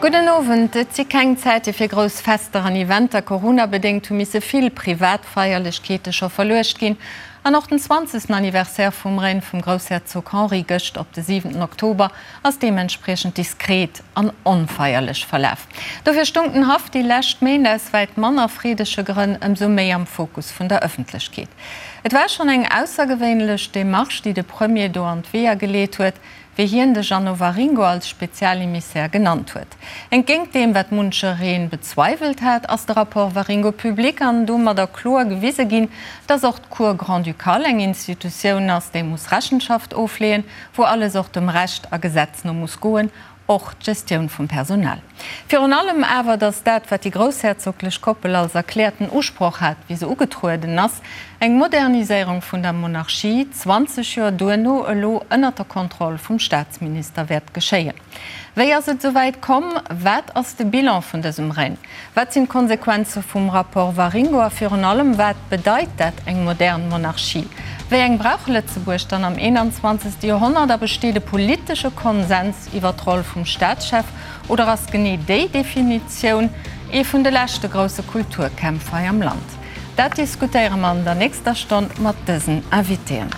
Gudden Owend. Et si keng Zäite fir grouss Fester an Eventer. Corona-bedéngt hu misse vill privat Feierlechkeete scho verluecht ginn. An och den 20. Anniversaire vum Règne vum Groussherzog Henri gëscht op de 7 Oktober ass deementspriechend diskret an onfeierlech verlaf. Dofir stung den Haff déi lescht Méint aus wäit manner freedege Grënn ëmsou méi am Fokus vun der Ëffentlechkeet. Et war schonn eng aussergewéinlech Demarche, déi de Premier do an d'Weeër geleet huet, wéi hien de Jeannot Waringo als Spezialemissär genannt huet. Entgéint deem, wat munchereen bezweiwelt hat, ass de Rapport Waringo public an domadder kloer gewise ginn, dass och d'Cour grand-ducale eng Institutioun ass, déi muss Rechenschaft ofleeën, wou alles och dem Recht a Gesetz no muss goen, och d'Gestioun vum Personal. Virun allem awer, datt dat, wat déi groussherzoglech Koppel als erkläerten Usproch hat, wéi se ugetrueden ass, eng Moderniséierung vun der Monarchie, 20 Joer duerno elo ënnert der Kontroll vum Staatsminister wäert geschéien. Wéi ass et esou wäit komm? Wat ass de Bilan vun dësem Règne? Wat sinn d'Konsequenze vum Rapport Waringo a virun allem, wat bedeit dat, eng modern Monarchie? Wéi eng brauch Lëtzebuerg dann am 21. Joerhonnert a besteet e politesche Konsens iwwer d'Roll vum Staatschef oder ass genee déi Definitioun ee vun de leschte grousse Kulturkämpf hei am Land? Dat diskutéiere mer an der nächster Stonn mat dësen Invitéen.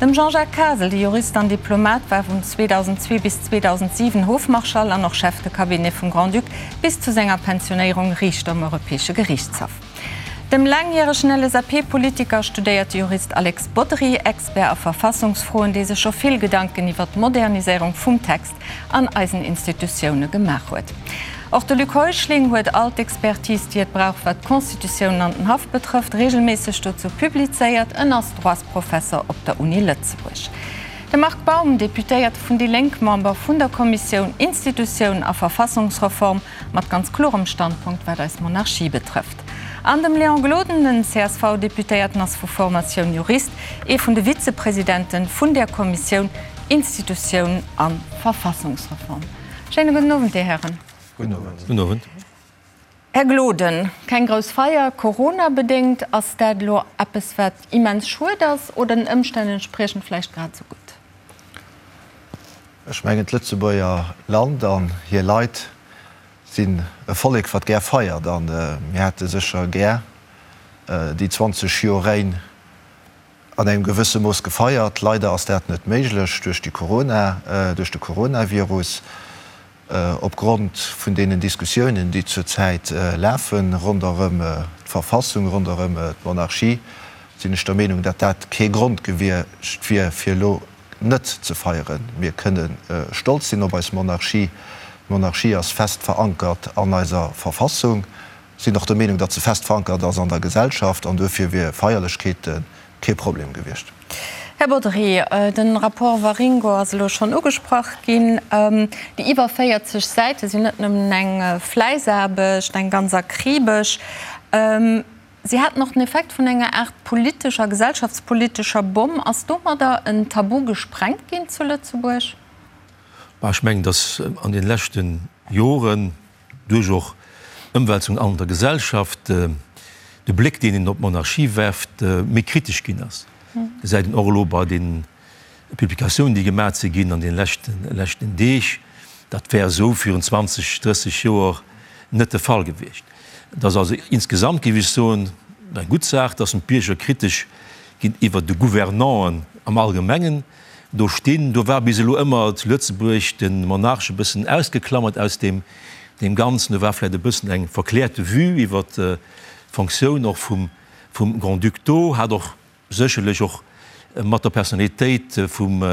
Dem Jean-Jacques Kasel, de Jurist an Diplomat, war vun 2002 bis 2007 Hofmarschall an och Chef de Cabinet vum Grand-Duc, bis zu senger Pensionéierung Riichter um Europäesche Geriichtshaff. Dem laangjäregen LSAP-Politiker a studéierte Jurist Alex Bodry, Expert a Verfassungsfroen, dee sech scho vill Gedanken iwwer d'Moderniséierung vum Text an eisen Institutioune gemaach huet. Och de Luc Heuschling huet all d'Expertise, déi et brauch, wat d'Constitutioun an den Haff betrëfft, reegelméisseg dozou publizéiert. En ass Droitsprofesser op der Uni Lëtzebuerg. De Marc Baum, Deputéierte vun déi Lénk, Member vun der Kommissioun Institutioun a Verfassungsreform, mat ganz klorem Standpunkt, wat eis Monarchie betrëfft. An dem Léon Gloden, den CSV-Deputéierten ass vu Formatioun Jurist, ee vun de Vizepresidente vun där Kommissioun Institutioun a Verfassungsreform. Schéine gudden Owend, Dir Hären. Gudden Owend. Gudden Owend. Här Gloden, keng grouss Feier, coronabedéngt. Ass dat elo eppes, wat immens schued ass oder den Ëmstänn entspriechend vläicht grad esou gutt? Ech mengen, d'Lëtzebuerger Land an hir Leit sinn e Vollek, wat gär feiert. A mir hätte sécher gär déi 20 Joer Règne an engem gewësse Mooss gefeiert. Leider ass dat net méiglech duerch déi Corona, duerch de Coronavirus. Opgrond vun deenen Diskussiounen, déi zur Zäit lafen ronderëm d'Verfassung, ronderëm d'Monarchie, sinn ech der Meenung, datt dat kee Grond gewiescht wier, fir elo net ze feieren. Mir kënne stolz sinn op eis Monarchie. D'Monarchie ass fest verankert an eiser Verfassung. Sinn och der Meenung, datt se fest verankert ass an der Gesellschaft an duerfir wier Feierlechkeete kee Problem gewiescht. Här Bodry, de Rapport Waringo ass elo schonn ugesprach ginn. Déi iwwer 40 Säite sinn net nëmmen eng Fläissaarbecht, eng ganz akribesch. Si haten och den Effekt vun enger Aart politescher, gesellschaftspolitescher Bomm. Ass domadder en Tabu gesprengt ginn zu Lëtzebuerg? Ech mengen, datt an deene leschte Joren duerch och Ëmwälzungen an der Gesellschaft de Bléck, deen een op d'Monarchie werft, méi kritesch ginn ass. Gesäit een och elo bei de Publikatiounen, déi gemaat si ginn an de leschten Deeg. Dat wär esou virun 20, 30 Joer net de Fall gewiescht. Et ass also insgesamt, géif ech soen, eng gutt Saach, dass d'Bierger kritesch géintiwwer de Gouvernanten am Allgemengen do stinn. Do war bis elo ëmmer zu Lëtzebuerg de Monarch e bëssen ausgeklammert aus deem Ganzen. Do war vläicht e bëssen eng verkläerte Vue iwwer d'Fonctioun och vum Grand-Duc do, hat och sécherlech och mat der Personnalitéit vum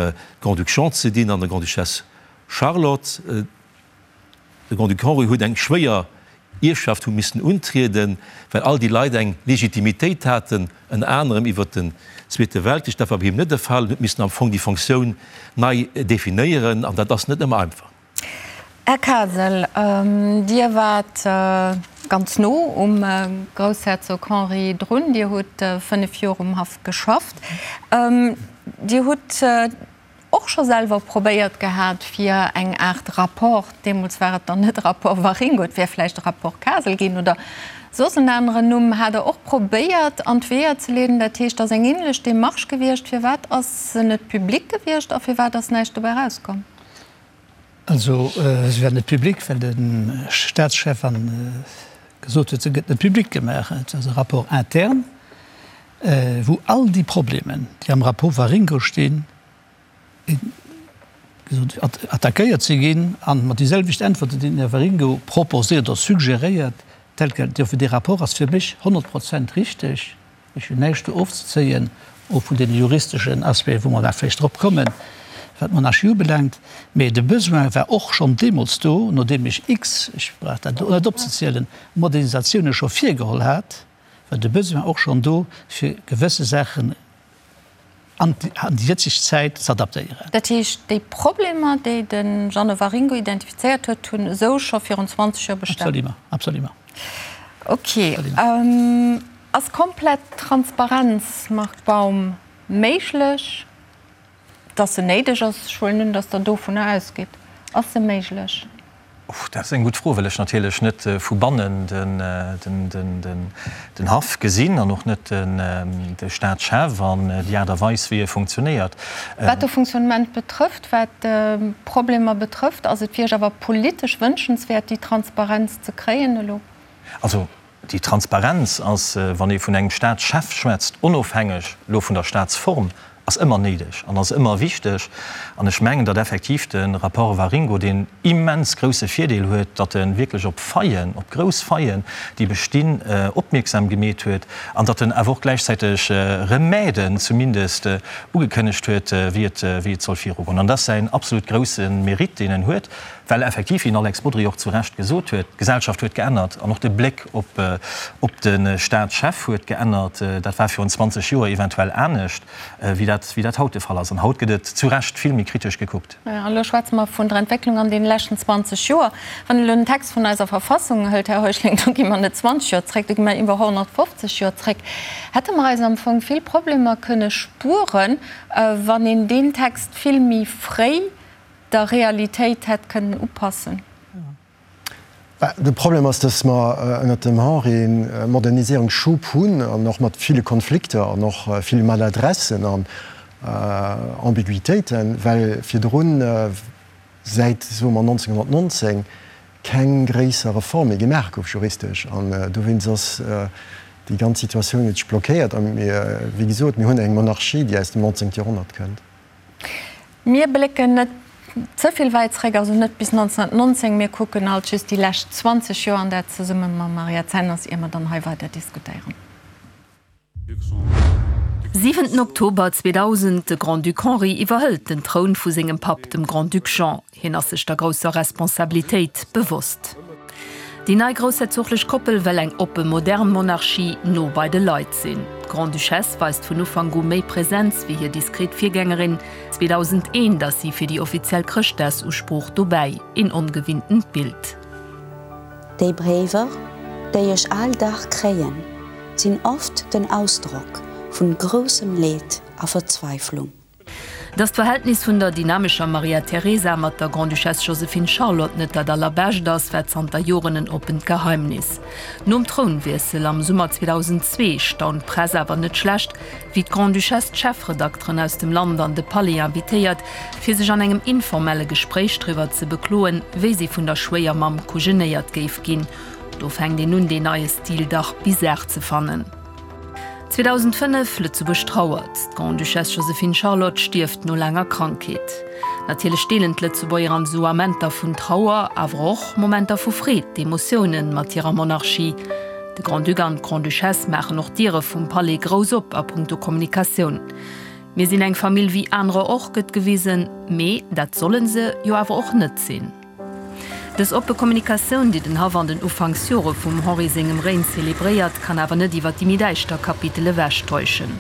Grand-Duc Jean ze dinn an der Grande-Duchesse Charlotte. De Grand-Duc Henri huet eng schwéier Ierfschaft hu missen untrieden, well all déi Leit eng Legitimitéit haten, ënner anerem iwwert den Zweete Weltkrich. Dat war bei him net de Fall. En huet missen am Fong déi Fonctioun nei definéieren, an dat ass net ëmmer einfach. Här Kasel, Dir waart ganz no um Groussherzog Henri drun. Dir hutt 5 Joer um Haff geschafft. Dir hutt och scho selwer probéiert gehat, fir eng Aart Rapport, deemools war et dann net Rapport Waringo, et wär vläicht e Rapport Kasel ginn oder soss en aneren Numm, hat Der och probéiert an d'Weeër ze leeden. Dat heescht, et ass eng ähnlech Démarche gewiescht. Firwat ass se net public gewiescht a firwat ass näischt dobäi erauskomm? Also se war net public, well de Staatschef gesot huet, se gëtt net public gemaach. Et ass e Rapport interne, wou all déi Problemen, déi am Rapport Waringo stinn, attackéiert si ginn a mat déi selwecht Äntwerten, déi den Här Waringo proposéiert oder suggeréiert, tel quel. Dofir, dee Rapport ass fir mech 100 Prozent richteg. Ech hunn näischt do ofzezéien, och vun deene juristeschen Aspecten, wou mer nach vläicht drop kommen, wat d'Monarchie ubelaangt. Mä de Besoin war och schonn deemools do, nodeem ech x, ech brauch dat elo net opzezielen, Modernisatiounen scho virgeholl hat, war de Besoin och schonn do, fir gewësse Saachen an déi jëtzeg Zäit z'adaptéieren. Dat heescht, déi Problemer, déi de Jeannot Waringo identifizéiert huet, hunn esou scho virun 20 Joer bestan? Absolument, absolument. Ok. Ass komplett Transparenz, Marc Baum, méiglech? Dass se néideg ass, ech huelen un, dass Der dovunner ausgitt. Ass se méiglech? Dat ass eng gutt Fro, well ech natierlech net vu bannen den Haff gesinn an och net de Staatschef an déi Aart a Weis, wéi e funktionéiert. Wat de Fonctionnement betrëfft, wat d'Problemer betrëfft, ass et fir Iech awer politesch wënschenswäert, déi Transparenz ze kréien elo? Also déi Transparenz ass, wann ee vun engem Staatschef schwätzt, onofhängeg elo vun der Staatsform, ass ëmmer néideg an ass ëmmer wichteg. An ech mengen, datt effektiv de Rapport Waringo deen immens grouse Virdeel huet, datt e wierklech op Faillen, op grouss Faillen, déi bestinn, opmierksam gemeet huet an datt en awer och gläichzäiteg Remèden zumindest ugekënnegt huet, wéi et, wéi et soll virugoen. An dat ass säin absolut grouse Mérite, deen en huet, well effektiv, wéi den Alex Bodry och zu Recht gesot huet, d'Gesellschaft huet geännert an och de Bléck op, op de Staatschef huet geännert. Dat war virun 20 Joer eventuell anescht, wéi dat, wéi dat haut de Fall ass. An haut gëtt et zu Recht vill méi kritesch gekuckt. An elo schwätze mer vun der Entwécklung an deene leschten 20 Joer. Wann een elo den Text vun eiser Verfassung hëlt, Här Heuschling, do gi mer net 20 Joer zréck, do gi mer iwwer 150 Joer zréck. Hätte mer eis am Fong vill Problemer kënne spueren, wann een deen Text vill méi fréi der Realitéit hätt kënnen upassen? De Problem ass, datt mer ënnert dem Henri e Moderniséierungsschub hunn an och mat ville Konflikter an och ville Maladressen an Ambiguitéiten, well virdrun, säit, soe mer, 1919, keng gréisser Reform méi gemaach gouf juristesch. An dowéinst ass déi ganz Situatioun huet sech blockéiert. A mir, wéi gesot, mir hunn eng Monarchie, déi aus dem 19. Joerhonnert kënnt. Mir blécken net ze vill wäit zréck, also net bis 1919. Mir kucken alt just déi lescht 20 Joer, an dat zesumme mam Mariette Zenners, ier mer dann hei weider diskutéieren. Siwenten Oktober 2000, De Grand-Duc Henri iwwerhëlt den Troun vu sengem Papp, dem Grand-Duc Jean. Hien ass sech der grousser Responsabilitéit bewosst. Déi nei groussherzoglech Koppel well eng oppe modern Monarchie, no bei de Leit sinn. D'Grande-Duchesse weist vun Ufank u méi Presenz wéi hir diskret Virgängerin. 2001 ass si fir déi offiziell Chrëschtdagsusprooch dobäi, een ongewinntent Bild. Déi Bréiwer, déi ech al Dag kréien, sinn oft den Ausdrock vun groussem Leed a Verzweiflung. Datt d'Verhältnis vun der dynamescher Maria Teresa mat der Grande-Duchesse Joséphine Charlotte net dat allerbescht ass, war zanter Joren en oppent Geheimnis. Nom Trounwiessel am Summer 2002 staunt d'Press awer net schlecht, wéi d'Grande-Duchesse d'Chefredakteren aus dem Land an de Palais invitéiert, fir sech an engem informelle Gespréich driwwer ze bekloen, wéi si vun der Schwéiermamm kujenéiert géif ginn. Do fänkt een un, deen neie Stil dach bizar ze fannen. 2005, Lëtzebuerg trauert, D'Grande-Duchesse Joséphine Charlotte stierft no laanger Krankheet. Natierlech deelen d'Lëtzebuerger an esou Amenter vun Trauer, awer och Momenter vu Freed, d'Emotioune mat hirer Monarchie. De Grand-Duc an d'Grande-Duchesse maachen och d'Diere vum Palais grouss op a punkto Kommunikatioun. Mir sinn eng Famill wéi anerer och, gëtt gewisen, mee dat solle se jo awer och net sinn. Dës oppe Kommunikatioun, déi den Haff an den Ufanksjore vum Henri sengem Règne zelebréiert, kann awer net iwwer déi méi däischter Kapitel ewechtäuschen.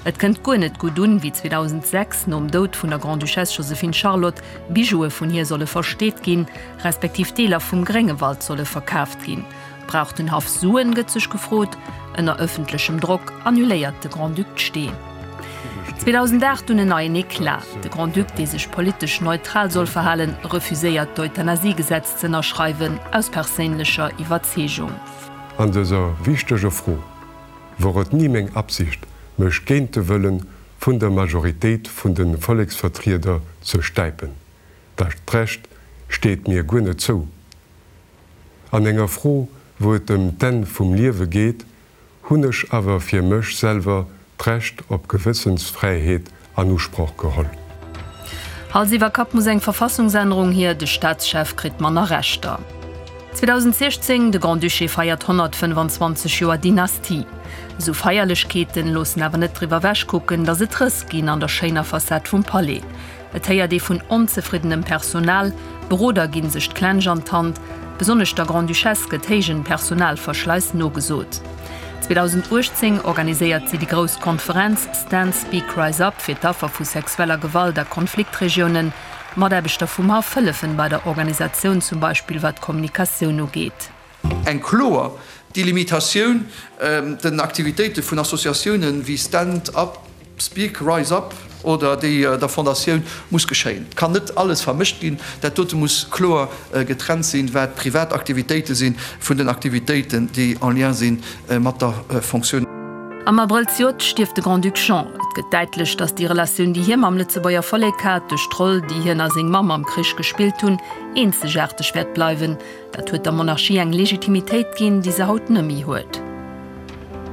Et kënnt guer net gutt un, wéi 2006, nom Doud vun der Grande-Duchesse Joséphine Charlotte, Bijoue vun hir solle versteet ginn, respektiv Deeler vum Gréngewald solle verkaaft ginn. Brauch den Haff Suen, gëtt sech gefrot. Ënner ëffentlechem Drock annuléiert de Grand-Duc d'Stee. 2008 dunn en neien Eclat, De Grand-Duc, dee sech politesch neutral soll verhalen, refuséiert d'Euthanasiegesetz z'ënnerschreiwen, aus perséinlecher Iwwerzeegung. An dëser wichteger Fro wor et ni meng Absicht, mech géint de Wëllen vun der Majoritéit vun de Volleksvertrieder ze stäipen. Dat Recht steet. steet mir guer net zou. An enger Fro, wou et ëm d'Enn vum Liewe geet, hunn ech awer fir mech selwer d'Recht op Gewëssensfräiheet an Usproch geholl. Hals iwwer Kapp muss eng Verfassungsännerung hier, de Staatschef kritt manner Rechter. 2016, De Grand-Duché feiert 125 Joer Dynastie. Esou Feierlechkeeten loossen awer net driwwer ewech kucken, datt et Rëss ginn an der schéiner Facette vum Palais. Et héiert ee vun onzefriddenem Personal, Beroder ginn sech d'Klensch an d'Hand, besonnesch der Grande-Duchesse gëtt héijen Personalverschleiss nogesot. 2018 organiséiert si déi grouss Konferenz Stand Speak Rise Up fir d'Affer vu sexueller Gewalt a Konfliktregiounen. Mataarbechter vum Haff hëllefen bei der Organisatioun, zum Beispill wat d'Kommunikatioun ugeet. Eng kloer Delimitatioun den Aktivitéite vun Associatiounen wéi Stand Up, Speak, Rise Up oder déi der Fondatioun muss geschéien. Et kann net alles vermëscht ginn. Dat dote muss kloer getrennt sinn, wat privat Aktivitéite si vun den Aktivitéiten, déi en lien si mat der Fonctioun. Am Abrëll zejoert stierft de Grand-Duc Jean. Et gëtt däitlech, datt déi Relatioun, déi hie mam Lëtzebuerger Vollek hat, duerch d'Roll, déi hien a seng Mamm am Krich gespillt hunn, eenzegaarteg wäert bleiwen. Dat huet der Monarchie eng Legitimitéit ginn, déi se haut nëmmi huet.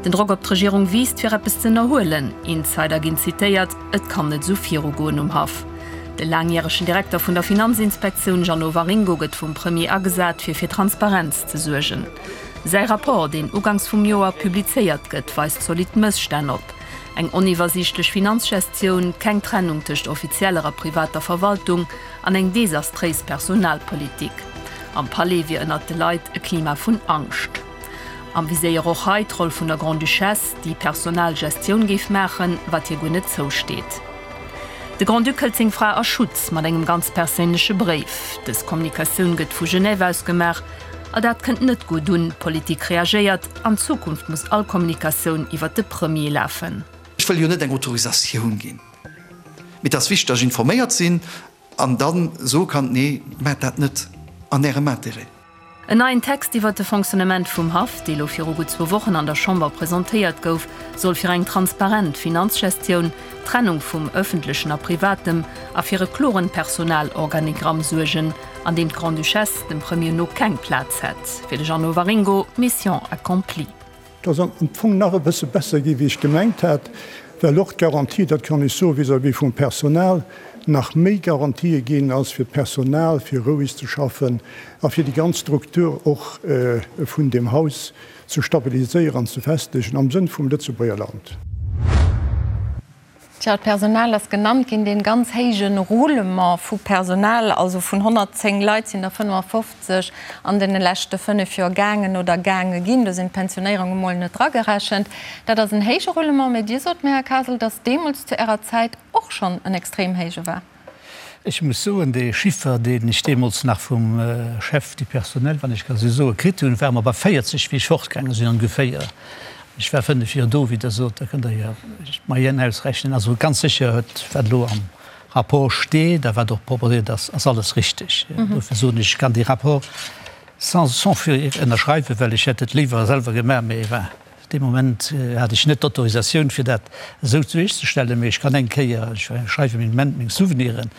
Den Drock op d'Regierung wiisst, fir eppes ze ënnerhuelen. Insider ginn zitéiert, Et kann net esou virugoen um Haff. De laangjäregen Direkter vun der Finanzinspektioun Jeannot Waringo gëtt vum Premier agesat, fir fir Transparenz ze suergen. Säi Rapport, deen uganks vum Joer publizéiert gëtt, weist zolidd Mësstänn op. Eng oniwwersiichtlech Finanzgestioun, keng Trennung tëscht offizieller a privater Verwaltung, An eng desastréis Personalpolitik. Am Palais wier ënnert de Leit e Klima vun Angscht. Am Viséier och hei d'Roll vun der Grande-Duchesse, déi Personalgestioun géif maachen, wat hir guer net zousteet. De Grand-Duc hëlt seng Fra a Schutz mat engem ganz perséinleche Bréif. Dës Kommunikatioun gëtt vu Genève aus gemaach. A dat kënnt net gutt un. D'Politik reagéiert, An Zukunft muss all Kommunikatioun iwwert de Premier lafen. Ech wëll jo net eng Autorisatioun ginn. Mee et ass wichteg, datt ech informéiert sinn an da soe kann, Nee, maacht dat net an Ärem Intérêt. En neien Text iwwert de Fonctionnement vum Haff, dee lo viru gutt zwou Wochen an der Chamber presentéiert gouf, soll fir eng transparent Finanzgestioun, d'Trennung vum Ëffentlechen a Privatem a fir e kloren Personalorganigramm suergen, an deem d'Grande-Duchesse dem Premier no keng Plaz hätt. Fir de Jeannot Waringo, Mission accomplie. Et ass am Fong nach e bësse besser gi wéi ech gemengt hat, well och d'Garantie, dat kann ech soen vis-à-vis vum Personal, nach méi Garantië ginn ass fir d'Personal, fir roueg ze schaffen a fir déi ganz Struktur och vun deem Haus ze stabiliséieren an ze festegen am Sënn vum Lëtzebuerger Land. Tja, d'Personal ass genannt ginn, dee ganz héije Roulement vu Personal, also vun 110 Leit sinn der 55 an deene leschte 5 Joer gaangen oder gaange ginn. Do sinn d'Pensionéierunge mol net dragerechent. Dat ass en héije Roulement. Mä Dir sot mir, Här Kasel, datt deemools zu Ärer Zäit och schonn en extrem héije war. Ech muss soen, dee Chiffer, deen ech deemools nach vum Chef du personnel, wann ech ka esou soen, kritt hunn, ware mer bei 40, wéi ech fortgaange sinn ongeféier. Ech war 5 Joer do, wéi Der sot, da kënnt Der jo d'Moyenne ausrechnen. Also ganz sécher huet, wat elo am Rapport steet a wat och proposéiert ass, ass alles richteg. Dofir soen ech, ech kann dee Rapport sans sans fir ënnerschreiwen, well ech hätt et léiwer selwer gemaach, mee enfin. Dee Moment hat ech net d'Autorisatioun, fir dat esou duerchzestellen, mee ech kann eng Kéier, ech schreiwe meng Moment meng Souveniren,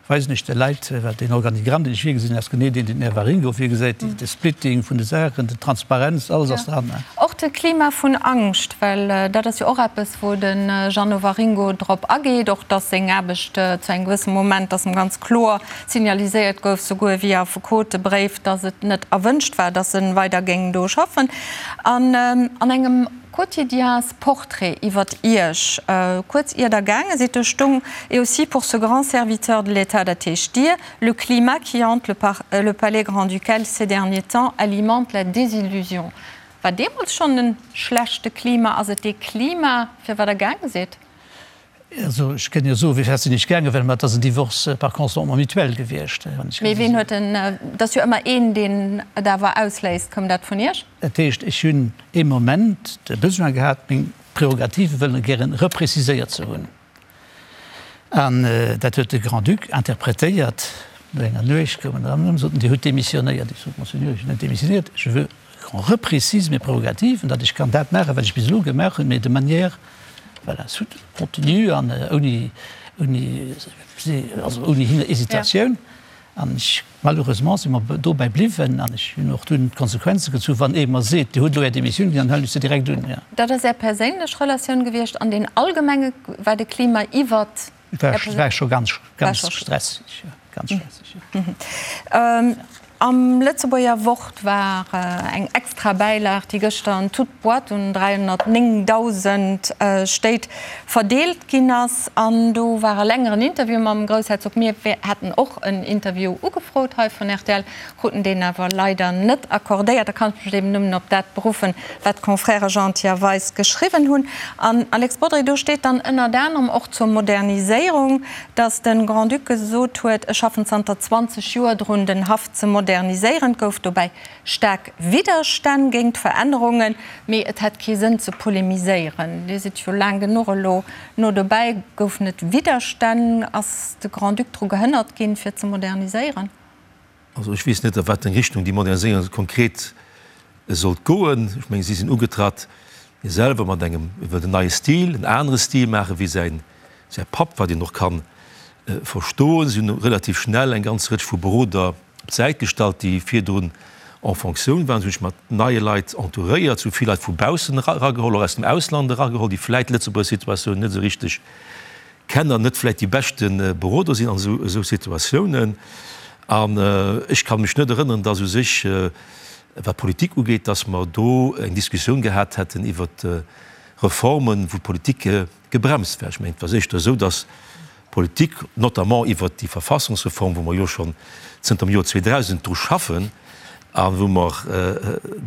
weisen ech de Leit, well deen Organigramm, deen ech virgesinn, ass genee deen, deen den Här Waringo virgesäit, de Splitting vun de Saachen, d'Transparenz, alles ass dran. Och de Klima vun Angscht, well dat ass jo och eppes, wou de Jeannot Waringo drop ageet, och datt seng Aarbecht zu engem gewësse Moment, datt em ganz kloer signaliséiert gouf, souguer via Affekotebréif, datt et net erwënscht war, datt e weider géing do schaffen. An an engem Quotidiensportrait iwwert Iech, kuerz ier Der gaange sidd, do stung, Et aussi pour ce grand serviteur de l'État, dat heescht Dir, le climat qui hante le palais grand-ducal ces derniers temps alimente la désillusion. War deemools schonn en schlechte Klima? Ass et dee Klima, fir wat Der gaange sidd? Also ech kënn jo soen, wéi fest sinn ech gaangen, well mer et ass en Divorce par consentement mutuel gewiescht. Mee ween huet en, et ass jo ëmmer een, deen et awer ausléist. Koum dat vun Iech? Dat heescht, ech hunn ee Moment de Besoin gehat, meng Prerogative wëllen gären repréciséiert ze hunn. An dat huet de Grand-Duc interpretéiert. No enger Nuecht koum en erëm an sot, Dir hutt demissionéiert. Ech sot, Monseigneur, ech hunn net demissionéiert, je veux qu'on reprécise mes prérogatives, datt ech kann dat maachen, wat ech bis elo gemaach hunn, mais de manière, voilà, soutenue an ouni, ouni, also ouni Hesitatioun. An ech, malheureusement si mer dobäi bliwwen an ech hunn och dunn d'Konsequenze gezu, wann ee mer seet, Dir hutt elo Är Demissioun ginn, dann huelen ech se direkt un, jo. Dat ass Är perséinlech Relatioun gewiescht. An den Allgemenge war de Klima iwwert Är Perséin. War scho ganz, ganz stresseg, jo, ganz stresseg, jo. Am Lëtzebuerger Wort war eng extra Bäilag, déi gëschter an toute boîte un 309.000 Stéit verdeelt ginn ass. An do war e längeren Interview mam Groussherzog. Mir haten och en Interview ugefrot hei vun rtl, kruten deen awer leider net accordéiert. Da kann ech mech eben nëmmen op dat beruffen, wat d'Confrèrë Gentil a Weis geschriwwen hunn. An, Alex Bodry, do steet dann ënnert anerem och zur Moderniséierung, Datt de Grand-Duc gesot huet, ech schaffen zanter 20 Joer drun, den Haff ze moderniséieren. Et gouf dobäi staark Widderstänn géint d'Verännerungen, mee et hätt kee Sënn ze polemiséieren. Dir sidd jo laang genuch elo no dobäi. Goufen et Widderstänn? Ass de Grand-Duc dru gehënnert ginn, fir ze moderniséieren? Also ech weess net, a wat eng Richtung déi Moderniséierung konkret sollt goen. Ech mengen, si sinn ugetratt, hie selwer mat engem, e wëllt en neie Stil, en anere Stil maachen, wéi säin, säi Papp, wat een och ka verstoen. Si hunn relativ schnell eng ganz Rëtsch vu Beroder op d'Säit gestallt, déi virdrun en Fonctioun waren. Si hunn sech mat neie Leit entouréiert, si hu vill Leit vu baussen erageholl, och aus dem Ausland erageholl, déi vläit d'Lëtzebuerger Situatioun net esou richteg Kenner net vläit déi beschte Beroder sinn an esou Situatiounen. An ech ka mech net erënneren, dass u sech, wat d'Politik ugeet, dass mer do eng Diskussioun gehat hätten iwwert Reformen, wou d'Politik gebremst war. Ech mengen, et war éischter esou, dass d'Politik, notamment iwwert déi Verfassungsreform, wou mer jo schonn zënter dem Joer 2000 dru schaffen a wou mer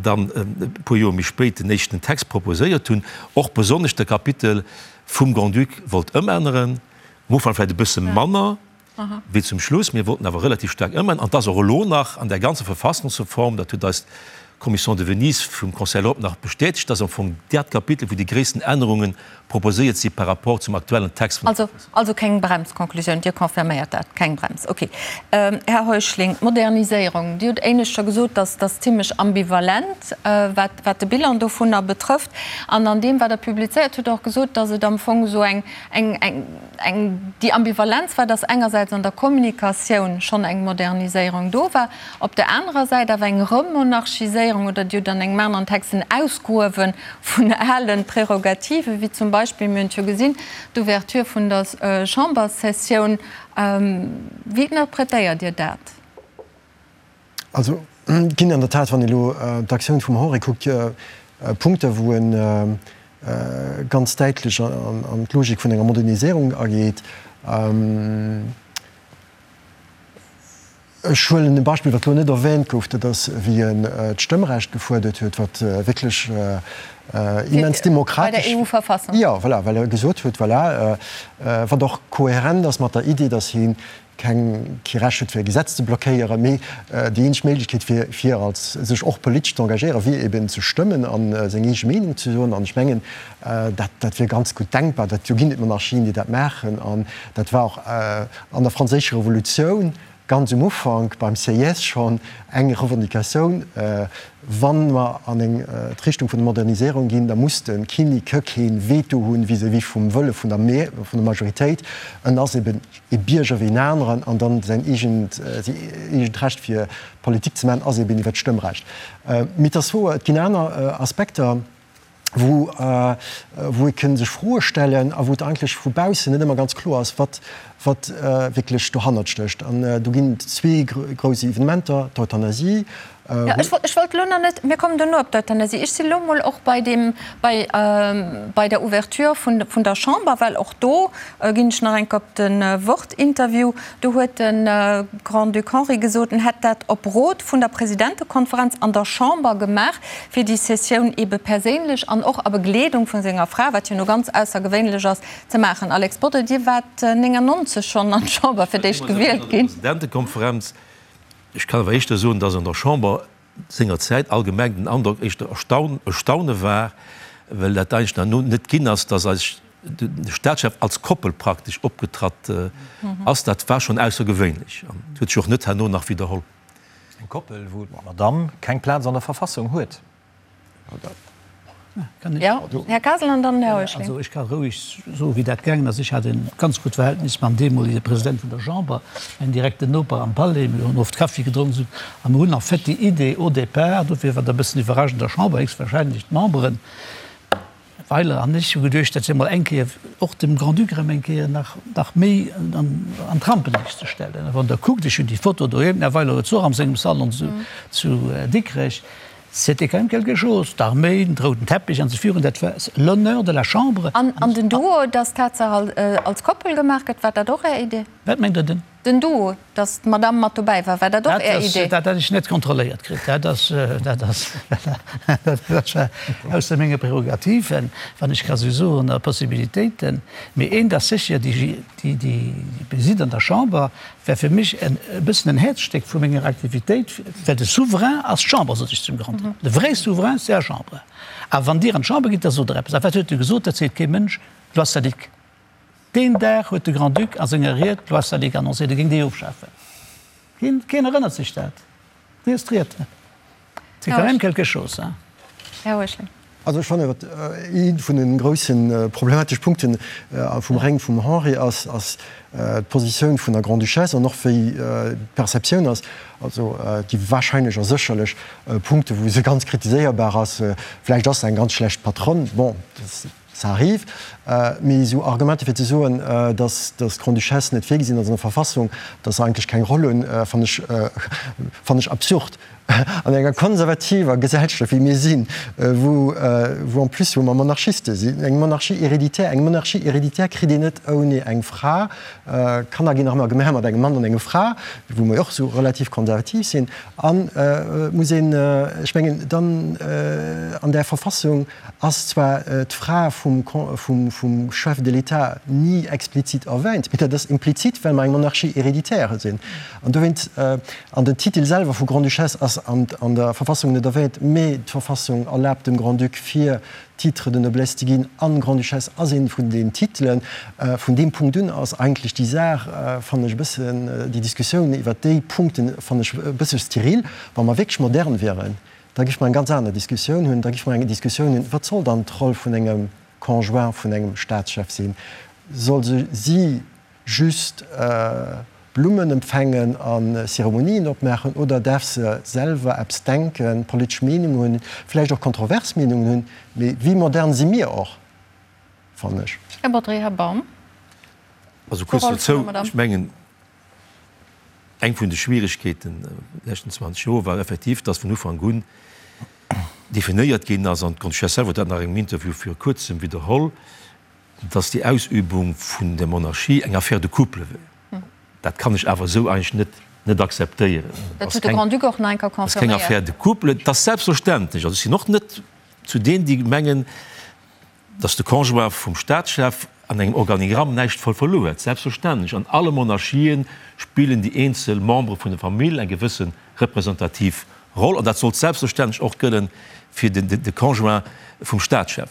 dann e puer Joer méi spéit den éischten Text proposéiert hunn, och besonnesch de Kapitel vum Grand-Duc wollt ëmänneren, am Ufank vläicht e bësse manner wéi zum Schluss, mir wollten awer relativ staark ëmänneren, an et ass och elo nach an där ganzer Verfassungsreform, dat huet eis d'Commission de Venise vum Conseil de l'Europe nach bestätegt, dass am Fong dat Kapitel, wou déi gréissten Ännerunge proposéiert si par rapport zum aktuellen Text vun der Verfassung. Also keng Brems, Conclusioun, Dir confirméiert dat, keng Brems. Okay. Här Heuschling, d'Moderniséierung, Dir hutt éinescht scho gesot, dass dass zimlech ambivalent, wat wat de Bilan dovunner betrëfft. An an deem, wat Der publizéiert hutt, Der och gesot, dass et am Fong esou eng eng eng eng déi Ambivalenz war, dass engersäits an der Kommunikatioun schonn eng Moderniséierung do war, op der anerer Säit awer eng Remonarchiséierung oder Dir hutt an engem aneren Text en Ausgruewe vun ale Prerogativen, wéi zum Beispill, mir hunn et jo gesinn, d'Ouverture vun der Chamberssessioun. Wéi interpretéiert Dir dat? Also et ginn an der Tat, wann ee elo d'Aktioun vum Henri kuckt, Punkte wou e ganz däitlech an d'Logik vun enger Moderniséierung ageet. Ech huelen e Beispill, wat elo net erwähnt gouf, dat ass, wéi en d'Stëmmrecht gefuerdert huet, wat wierklech immens demokratesch. Bei der EU-Verfassung. Jo, voilà, well e gesot huet, voilà, wat och kohärent ass mat der Idee, datt hie keng, kee Recht huet, fir e Gesetz ze blockéieren, mee déi eenzeg Méiglechkeet, fir, fir als sech och politesch ze engagéieren, wier eben ze stëmmen a seng eege Meenung ze soen. An ech mengen, dat, dat wier ganz gutt denkbar. Dat, do ginn et Monarchien, déi dat maachen. An dat war och an der Franséischer Revolutioun ganz um Ufank beim Sieyès schonn eng Revendicatioun, Wa mer an eng d'Richtung vun der Moderniséierung ginn, da muss de Kinnek kee Veto hunn vis-à-vis vum Wëlle vun der vun der Majoritéit. En ass eben ee Bierger wéi en aneren an dann säin eegent säi eegent Recht fir Politik ze maachen ass eben iwwer d'Stëmmrecht. Mee et ass wouer, et ginn aner Aspekter. wou wou ee kënn sech Froe stellen a wou et eigentlech vu baussen net ëmmer ganz kloer ass, wat wat wierklech dohannert stécht. An do ginn et zwee grouss Evenementer, d'Euthanasie. Jo, ech wollt, ech wollt elo nach net, mir kommen duerno op d'Euthanasie. Ech sinn elo emol och bei deem, bei bei der Ouverture vun vun der Chamber, well och do ginn ech nach eng Kéier op de Wort-Interview. Do huet de Grand-Duc Henri gesot, en hätt dat op Rot vun der Presidentekonferenz an der Chamber gemaach, fir déi Sessioun ebe perséinlech an och a Begleedung vu senger Fra, wat jo no ganz aussergewéinlech ass, ze maachen. Alex Bodry, Dir waart 99 schonn an d'Chamber fir d'éischt gewielt ginn. Presidentekonferenz, Ech kann awer éischter soen, datt an der Chamber sengerzäit allgemeng den Androck éischter Erstaune war, well dat eigentlech nach no net ginn ass, datt eis de Staatschef als Koppel praktesch opgetratt ass. Dat war schonn aussergewéinlech an huet sech och net herno nach widderholl. Eng Koppel, wou d'Madamm keng Plaz an der Verfassung huet. Jo, Här Kasel an dann Här Heuschling. Also ech ka roueg soen, wéi dat gaangen ass. Ech hat e ganz gutt Verhältnis mam deemolege President vun der Chamber, mäin direkten Noper am Palais. Mir hunn oft Kaffi gedronk esou. A mir hunn en fait déi Idee au départ, dofir war dat e bëssen iwwerraschend der Chamber, héchstwahrscheinlech d'Memberen, Weiler an ech hu geduecht, dat wier mol eng Kéier och dem Grand-Duc erëm eng Kéier nach, nach méi an, an d'Rampenliicht ze stellen. A wann Der kuckt, ech hunn déi Foto doheem, den Här Weiler huet se och am sengem Salon zu, zu Dikrech, c'était quand même quelque chose, d'Arméi, den rouden Teppich an esou virun, dat war l'honneur de la Chambre. An, an den Duo, dass d'Tatsaach als Koppel gemaach gëtt, war dat och Är Idee? Wat mengt Der? Den? Den Duo, dass d'Madame mat dobäi war, war dat och Är Idee? Dat hätt ech net kontrolléiert kritt. Dat ass, dat ass, dat war ausser menge Prerogativen, wann ech ka sou soen, a Possibilitéiten. Mee eent ass sécher, déi, déi, déi Visite an der Chamber war fir mech en e bëssen en Häerzstéck vu menger Aktivitéit, well de Souverain ass d'Chamber, sot ech zum Grand-Duc. De vrai Souverain, c'est la Chambre. A wann Dir an d'Chamber gitt, da sot Der eppes. A wat huet e gesot? Dat seet kee Mënsch, Loi Salique. Deen Dag huet de Grand-Duc a senger Ried d'Loi Salique annoncéiert, e géing déi ofschafen. Keen, keen erënnert sech dat. Liest d'Ried. C'est quand même quelque chose, hein. Här Heuschling. Also ech fannen, wat ee vun de grousse problematesch Punkte vum Règne vum Henri ass, ass d'Positioun vun der Grande-Duchesse an och wéi d'Perceptioun ass, also déi wahrscheinlech a sécherlech Punkte wou se ganz kritiséierbar ass, vläicht ass se eng ganz schlecht Patronne, bon, Ça arrive. Mee esou Argumenter fir ze soen, datt d'Grande-Duchesse net virgesinn ass an der Verfassung, datt se eigentlech keng Roll hunn, fannen ech, fannen ech absurd. An enger konservativer Gesellschaft wéi mir sinn, wou, wou en plus, wou mer Monarchiste sinn, eng Monarchie héréditaire, eng Monarchie héréditaire kritt een net ouni eng Fra, Kanner ginn nach ëmmer gemaach mat engem Mann an enger Fra, wou mer jo och esou relativ konservativ sinn, an et muss een, ech mengen, dann an där Verfassung, ass zwar d'Fra vum Chef de l'État ni explizit erwäint, mee dat ass implizit, well mer eng Monarchie héréditaire sinn. An dowéint, an den Titel selwer vu Grande-Duchesse ass an der Verfassung net erwäint, mee d'Verfassung erlaabt dem Grand-Duc fir Titre de noblesse ze ginn, an Grande-Duchesse ass ee vun den Titelen. Vun deem Punkt un ass eigentlech déi Saach, fannen ech e bëssen, déi Diskussioun iwwert déi Punkten fannen ech e bësse steril. Wa mer wierklech modern wieren, Da géife mer eng ganz aner Diskussioun hunn. Da géife mer eng Diskussioun hunn, Wat soll dann d'Roll vun engem Conjoint vun engem Staatschef sinn? Soll se si just Blummen empfängen a Zeremonien opmaachen oder däerf se selwer eppes denken, politesch Meenungen hunn, vläicht och kontrovers Meenungen hunn? Mee wéi modern si mir och, fannen ech. Här Bodry, Här Baum. Also kuerz dozou, ech mengen, Eng vun de Schwieregkeeten de leschten 20 Joer war effektiv, dass vun Ufank un definéiert ginn ass, an d'Grande-Duchesse selwer huet dat nach engem Interview viru Kuerzem widderholl, dass déi Ausübung vun der Monarchie eng Affaire de couple wär. Dat kann ech awer esou eigentlech net net akzeptéieren. Dat huet de Grand-Duc och nach eng Kéier Dat ass keng confirméiert. Affaire de couple. Et ass selbstverständlech, also ech sinn och net zu deenen, déi mengen, Datt de Conjoint vum Staatschef an engem Organigramm näischt verluer huet, selbstverständlech. An alle Monarchien spillen déi eenzel Membere vun der Famill eng gewësse representativ Roll, an dat sollt selbstverständlech och gëllen fir de Conjoint vum Staatschef.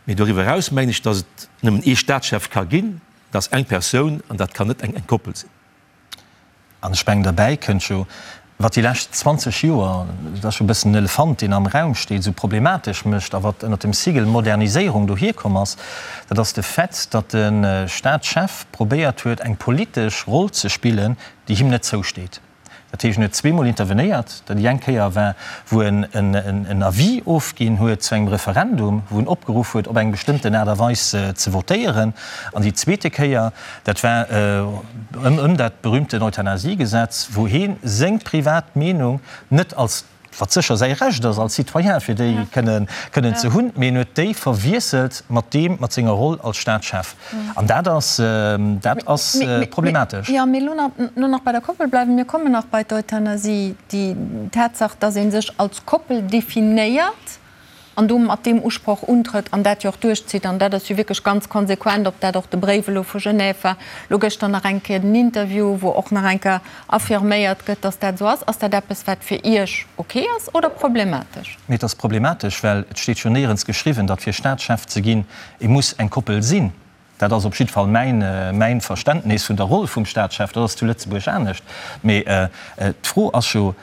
Mee doriwwer eraus mengen ech, datt et nëmmen ee Staatschef ka ginn, dat ass eng Persoun, an dat kann net eng Koppel sinn. An ech mengen, derbäi kënnt jo, wat déi lescht 20 Joer, dat ass jo e bëssen den Elefant, deen am Raum steet, esou problematesch mécht a wat ënnert dem Sigel Moderniséierung dohierkomm ass, dat ass de Fait, datt de Staatschef probéiert huet, eng politesch Roll ze spillen, déi him net zousteet. Dat heescht, en huet zweemol intervenéiert. Dat déi eng Kéier war, wou en en Avis ofginn huet zu engem Referendum, wou en opgeruff huet, op eng bestëmmten Aart a Weis ze votéieren. An déi zweete Kéier, Dat war ëm dat berühmten Euthanasiegesetz, wou hee seng privat Meenung net als, wat sécher säi Recht ass als Citoyen, fir déi kënnen ze hunn, mee en huet déi verwiesselt mat deem, mat senger Roll als Staatschef. An dat ass, dat ass problematesch. Jo, mee elo nach bei der Koppel bleiwen. Mir kommen nach bei d'Euthanasie. Déi Tatsaach, dass ee sech als Koppel definéiert, an do mat deem Usproch untrëtt an dat jo och duerchzitt, an dat ass jo wierklech ganz konsequent, ob dat och de Bréif elo vu Genève war, elo gëschter nach eng Kéier den Interview, wou och nach eng Kéier affirméiert gëtt, dass dat esou ass. Ass dat eppes, wat fir Iech ok ass oder problematesch? Mee et ass problematesch, well et steet jo néierens geschriwwen, datt fir Staatschef ze ginn, ee muss eng Koppel sinn. Dat ass op jidde Fall mäin, mäin Verständnis vun der Roll vum Staatschef. Dat ass zu Lëtzebuerg anescht. Mee d'Fro ass jo,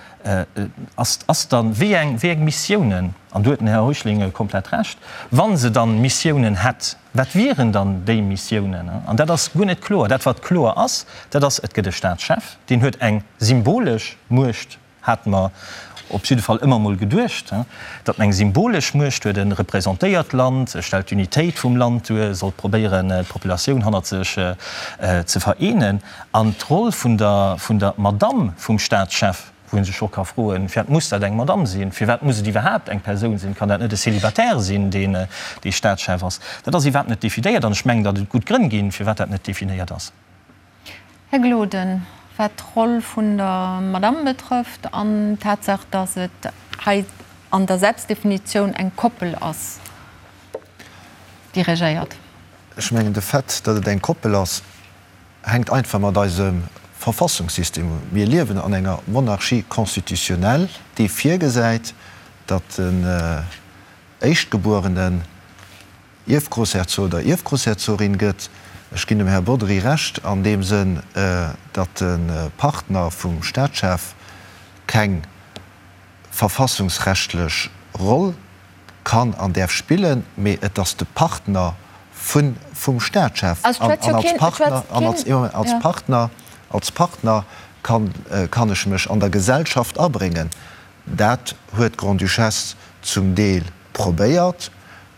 ass, ass dann, wéi eng, wéi eng Missiounen, an do huet den Här Heuschling komplett Recht, wa se dann Missiounen hätt, wat wieren dann déi Missiounen? An dat ass guer net kloer. Dat wat kloer ass, dat ass, et gëtt e Staatschef, deen huet eng symbolesch Muecht Hate mer op jidde Fall ëmmer mol geduecht, datt en eng symbolesch Muecht huet. E representéiert d'Land, e stellt d'Unitéit vum Land duer, e sollt probéieren, d'Populatioun hannert sech ze vereenen. An d'Roll vun der, vun der Madamm vum Staatschef, wou ee sech och ka froen, Firwat muss dat eng Madamm sinn? Firwat muss et iwwerhaapt eng Persoun sinn? Kann dat net e Célibataire sinn, deen dee Staatschef ass? Dat ass iwwerhaapt net definéiert. An ech mengen, datt et gutt Grënn ginn, firwat dat net definéiert ass. Här Gloden, wat d'Roll vun der Madamm betrëfft an d'Tatsaach, datt et hei an der Selbstdefinitioun eng Koppel ass, déi regéiert. Ech mengen, de Fait, datt et eng Koppel ass, hänkt einfach mat eisem Verfassungssystem un. Mir liewen an enger Monarchie constitutionnelle, déi virgesäit, datt den Éischtgebuerenen, Ierfgroussherzog oder Ierfgroussherzogin gëtt. Ech ginn dem Här Bodry Recht an deem Sënn, datt de Partner vum Staatschef keng verfassungsrechtlech Roll kann an däerf spillen, mee et ass de Partner vum Staatschef. An als Partner, als Partner, als Partner kann ech mech an der Gesellschaft abréngen. Dat huet d'Grande-Duchesse zum Deel probéiert.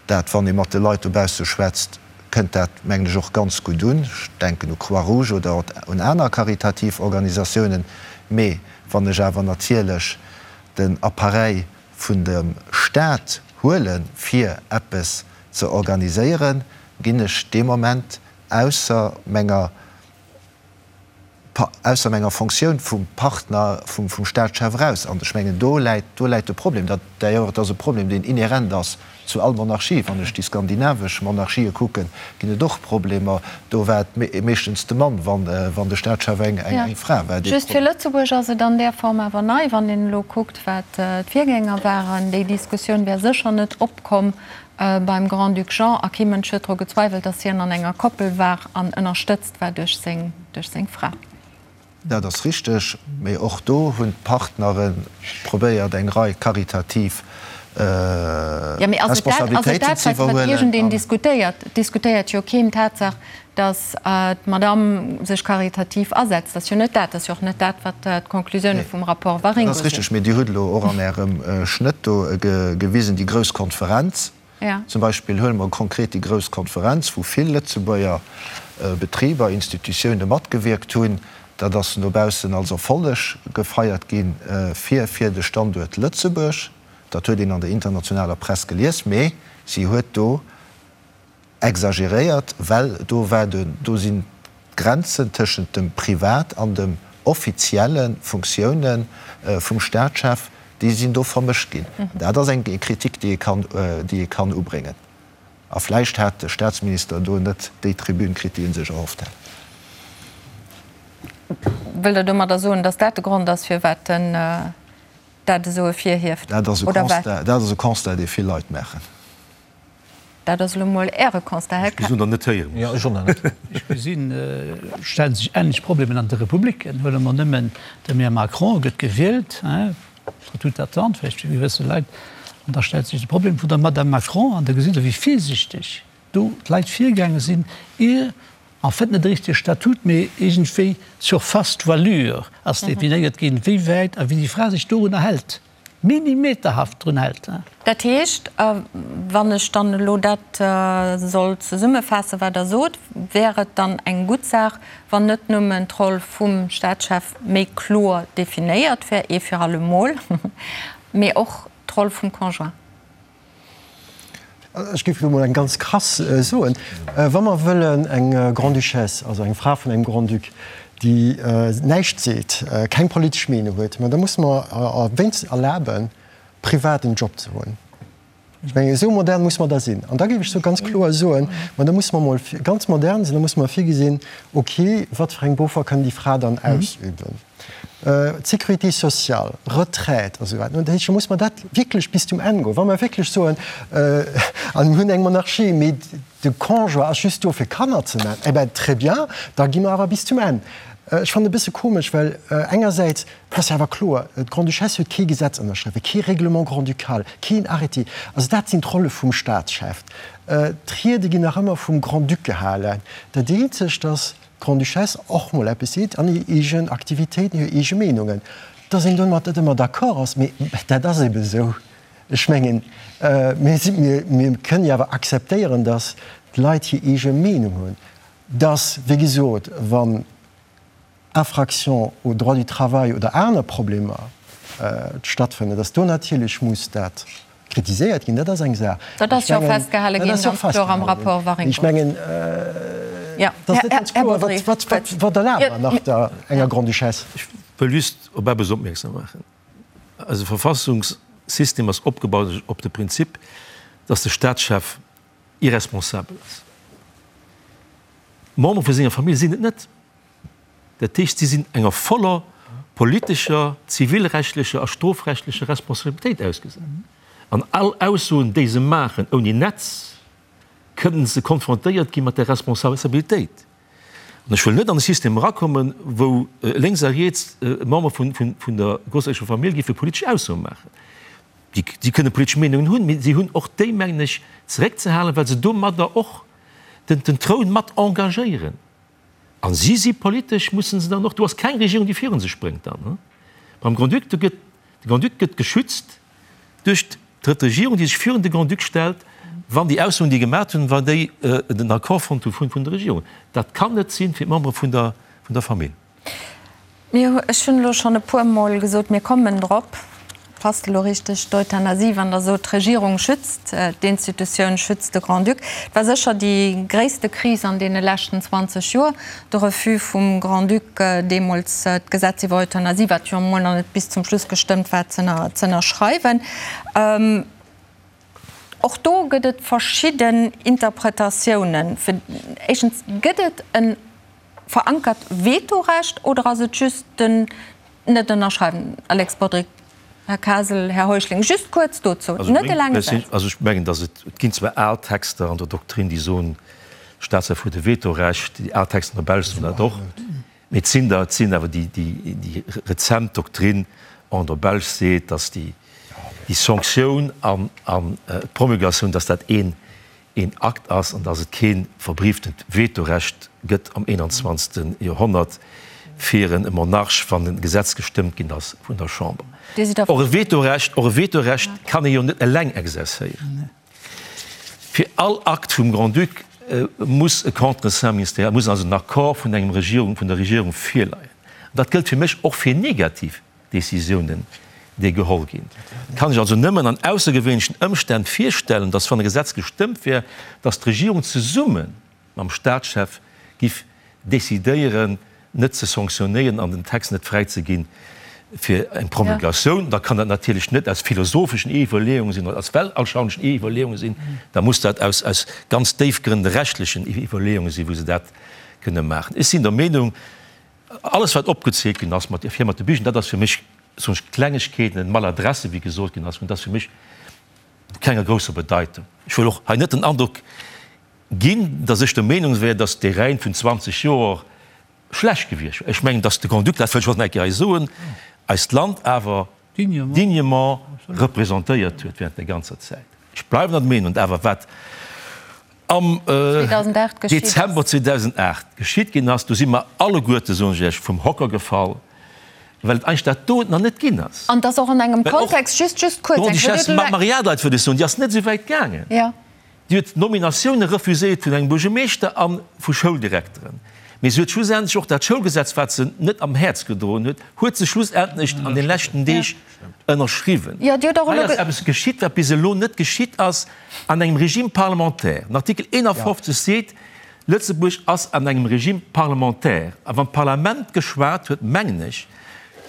Dat, wann ee mat de Leit dobausse schwätzt, kënnt dat, mengen ech, och ganz gutt un. Ech denken u Croix-Rouge oder un aner karitativ Organisatiounen. Mee wann ech awer natierlech den Appareil vun dem Stat huele fir eppes ze organiséieren, ginn ech dee Moment ausser menger ausser menger Fonctioun vum Partner vum Staatschef eraus. An ech mengen, do läit, do läit de Problem. Dat, d'ailleurs, et ass e Problem, deen inhärent ass zu all Monarchie. Wann ech déi skandinavesch Monarchië kucken, ginn et och Problemer. Do war et meeschtens de Mann, wann, wann de Staatschef eng, eng Fra war, dee. Just fir Lëtzebuerg ass et an där Form awer nei, wann een elo kuckt, wat d'Virgänger waren. Déi Diskussioun wär sécher net opkomm beim Grand-Duc Jean, a kee Mënsch huet dru gezweiwelt, datt hien an enger Koppel war an ënnerstëtzt war duerch seng, duerch seng Fra. Dat ass richteg, mee och do hunn d'Partnere probéiert eng Rei karitativ Jo, mee ass et dat, ass et Responsabilitéiten dat, ze wat, wat iwwerhuelen. iergendeen diskutéiert? Et diskutéiert jo keen d'Tatsaach, datt d'Madamm sech karitativ asetzt. Dat ass jo net dat. Dat ass jo och net dat, wat d'Conclusioune vum Rapport Dat Waringo ass sinn. richteg, mee Dir hutt elo och an Ärem Schnëtt do gewisen, déi grouss Konferenz zum Beispill. Huele mer konkret déi grouss Konferenz, wou vill Lëtzebuerger Betriber, Institutioune matgewierkt hunn. Dat ass no baussen als Erfolleg gefeiert gi fir fir de Standuert Lëtzebuerg. Dat huet een an der internationaler Press gelies, mee si huet do Exageréiert, well do war de, do sinn d'Grenzen tëschent dem Privat an dem offizielle Funktioune vum Staatschef, déi sinn do vermëscht ginn. Dat ass eng Kritik, déi ee kann, déi ee kann ubréngen. A vläicht hat de Staatsminister do net déi Tribün kritt, déi e sech erhofft hat. Wëllt Der domadder soen, datt dat de Grond ass, firwat en dat esou ervirhieft, Dat ass e oder wat? Constat, dat ass e Constat, dee vill Leit maachen. Dat ass elo mol Äre Constat, Här Ech gesinn der net héieren. Jo, ech och nach net. Ech gesinn, et stelle sech änlech Problemen an de Republiken. Huele mer nëmmen den Här Macron, gëtt gewielt, contre toute attente vläicht fir gewësse Leit, an da stellt sech de Problem vun der Madame Macron. An da gesitt Der, wéi virsichteg do d'Leit virgaange sinn, ier en fait net e richtege Statut, mee iergendwéi d'Surface d'voilure ass definéiert ginn, wéi wäit a wéi déi Fra sech dorunner hält. Millimeterhaft drun hält. Dat heescht, wann ech dann elo dat soll zesummefaassen, wat Der sot, wär et dann eng gutt Saach, wann net nëmmen d'Roll vum Staatschef méi kloer definéiert wär, ee fir allemol, mee och d'Roll vum Conjoint. Ech géif elo mol eng ganz krass soen, Wa mer wëllen eng Grande-Duchesse, also eng Fra vun engem Grand-Duc, déi näischt seet, keng politesch Meenung huet, ma da musse mer wéinstens erlaben, privat en Job ze hunn. Ech mengen, esou modern muss mer da sinn. An da géif ech sou ganz kloer soen, ma da musse mer emol ganz modern sinn, da musse mer virgesinn, okay, wat fir eng Beruffer kann déi Fra dann ausüben? D'Sécurité sociale, Retraite a sou weider. Dat heescht, da muss mer dat wierklech bis zum Enn goen. Wa mer wierklech soen, a mir hunn eng Monarchie, mee de Conjoint ass just do fir Kanner ze maachen, eh ben très bien, da gi mer awer bis zum Enn. Ech fannen e bësse komesch, well engersäits, et ass jo awer kloer, d'Grande-Duchesse huet kee Gesetz ënnerschriwwen, kee Règlement grand-ducal, keen Arrêté. Also dat sinn d'Rolle vum Staatschef. D'Riede ginn nach ëmmer vum Grand-Duc gehalen. Dat eenzegt, datt d'Grande-Duchesse och mol eppes seet an hir eegen Aktivitéiten, hir eege Meenungen, datt een domat net ëmmer d'accord ass, mee dat ass ebe sou. Ech mengen, mir si, mir kënnen jo awer akzeptéieren, datt d'Leit hir eege Meenung hunn, datt, wéi gesot, wann Infractions au droit du travail oder aner Problemer stattfënnen, datt do natierlech muss dat kritiséiert ginn. Dat ass eng Saach. Dat ass jo och festgehale ginn, ganz kloer am Rapport Waringo. Ech mengen, dat ass net ganz kloer, wat erlaabe mer nach der enger Grande-Duchesse? Ech wëll just op eppes opmierksam maachen. Eise Verfassungssystem ass opgebaut op de Prinzip, dass de Staatschef irresponsabel ass. D'Membere vu senger Famill sinn et net. Dat heescht, si sinn enger voller politescher, zivilrechtlecher a strofrechtlecher Responsabilitéit ausgesat. An all Aussoen, déi se maachen ouni Netz, kënnen se konfrontéiert gi mat där Responsabilitéit. An ech wëll net an e System erakommen, wou lénks a riets Member vun der grousserecher Famill géife politesch Aussoe maachen. Si kënne politesch Meenungen hunn, mee si hunn och déi, mengen ech, zeréckzehalen, well se domadder och den Troun mat engagéieren. A si si politesch, musse se dann och, do ass keng Regierung, déi virun se spréngt dann. Beim Grand-Duc, do gëtt, de Grand-Duc gëtt geschützt duerch d'Regierung, déi sech virun de Grand-Duc stellt, wann déi Aussoen, déi gemaat hunn, wann déi den Accord fonnt hu vun der Regierung. Dat kann net sinn fir d'Membere vun der, vun der Famill. Mir, ech hunn elo schonn e puermol gesot, mir kommen drop. Passt elo richteg, d'Euthanasie, wann Der sot, d'Regierung schützt d'Institutioun, schützt de Grand-Duc. Et war sécher déi gréisste Kris an deene leschten 20 Joer, de Refus vum Grand-Duc, deemools d'Gesetz iwwer Euthanasie, wat jo emol nach net bis zum Schluss gestëmmt war, ze ënnerschreiwen. Och do gëtt et verschidden Interpretatiounen. Éischtens, gëtt et e verankert Vetorecht oder ass et just den Net ënnerschreiwen. Alex Bodry, Här Kasel, Här Heuschling, just kuerz dozou, net e laange Saz. Also ech mengen, datt et, et ginn zwar al Texter an der Doktrin, déi soen, Staatschef huet e Vetorecht, déi al Texter an der Belsch soen dat och, mee et sinn der, et sinn awer déi, déi, déi rezent Doktrin an der Belsch seet, datt déi, déi Sanktioun an, an d'Promulgatioun, datt dat een, een Akt ass an dass et kee verbrieftent Vetorecht gëtt am 21. Joerhonnert fir e Monarch, wann e Gesetz gestëmmt ginn ass vun der Chamber. Och e Vetorecht, och e Vetorecht kann ee jo net eleng exerzéieren. Fir all Akt vum Grand-Duc muss e Contreseing ministériel, muss also en Accord vun engem Regierung, vun der Regierung virleien. An dat gëllt fir mech och fir negativ Décisiounen, déi geholl ginn. Kann ech also nëmmen an aussergewéinlechen Ëmstänn virstellen, dass, wann e Gesetz gestëmmt wär, dass d'Regierung zesumme mam Staatschef giff décidéieren, net ze sanctionnéieren an den Text net fräizeginn fir eng Promulgatioun. Da kann dat natierlech net aus philosopheschen Iwwerleeungen sinn oder aus weltanschaulichen Iwwerleeungen sinn, da muss dat aus aus ganz déifgrënnende rechtlichen Iwwerleeungen sinn, wou se dat kënne maachen. Ech sinn der Meenung, Alles wat opgezielt ginn ass mat fir mat de Bichen, dat ass fir mech, soen ech, Klengegkeeten, Maladresse wéi gesot ginn ass, dat ass fir mech vu kenger grousser Bedeitung. Ech wëll och hei net den Androck ginn, datt ech der Meenung wär, datt dee Règne vun 20 Joer schlecht gewiescht wär. Ech mengen, datt de Grand-Duc, dat wëll ech och nach eng Kéier hei soen, eist Land awer dignement représentéiert huet während der ganzer Zäit. Ech bleiwen an der Meenung, awer wat am Dezember 2008 geschitt ginn ass, do si mer alleguerte, soen ech Iech, vum Hocker gefall, well et eigentlech dat do nach net ginn ass. An dass och an engem Kontext, just, just kuerz, eng D'Grande-Duchesse Maria Leit, wëll ech soen, déi ass net esou wäit gaangen. Déi huet Nominatioune refuséiert vun engem Buergermeeschter a vu Schouldirekteren. Mee se huet schlussendlech och dat Schoulgesetz, wat se net am Häerz gedroen huet, huet se schlussendlech an de leschten Deeg ënnerschriwwen. Hei ass eppes geschitt, wat bis elo net geschitt ass an engem Régime parlementaire. Den Artikel 51 seet, Lëtzebuerg ass an engem Régime parlementaire. A wann d'Parlament geschwat huet, mengen ech,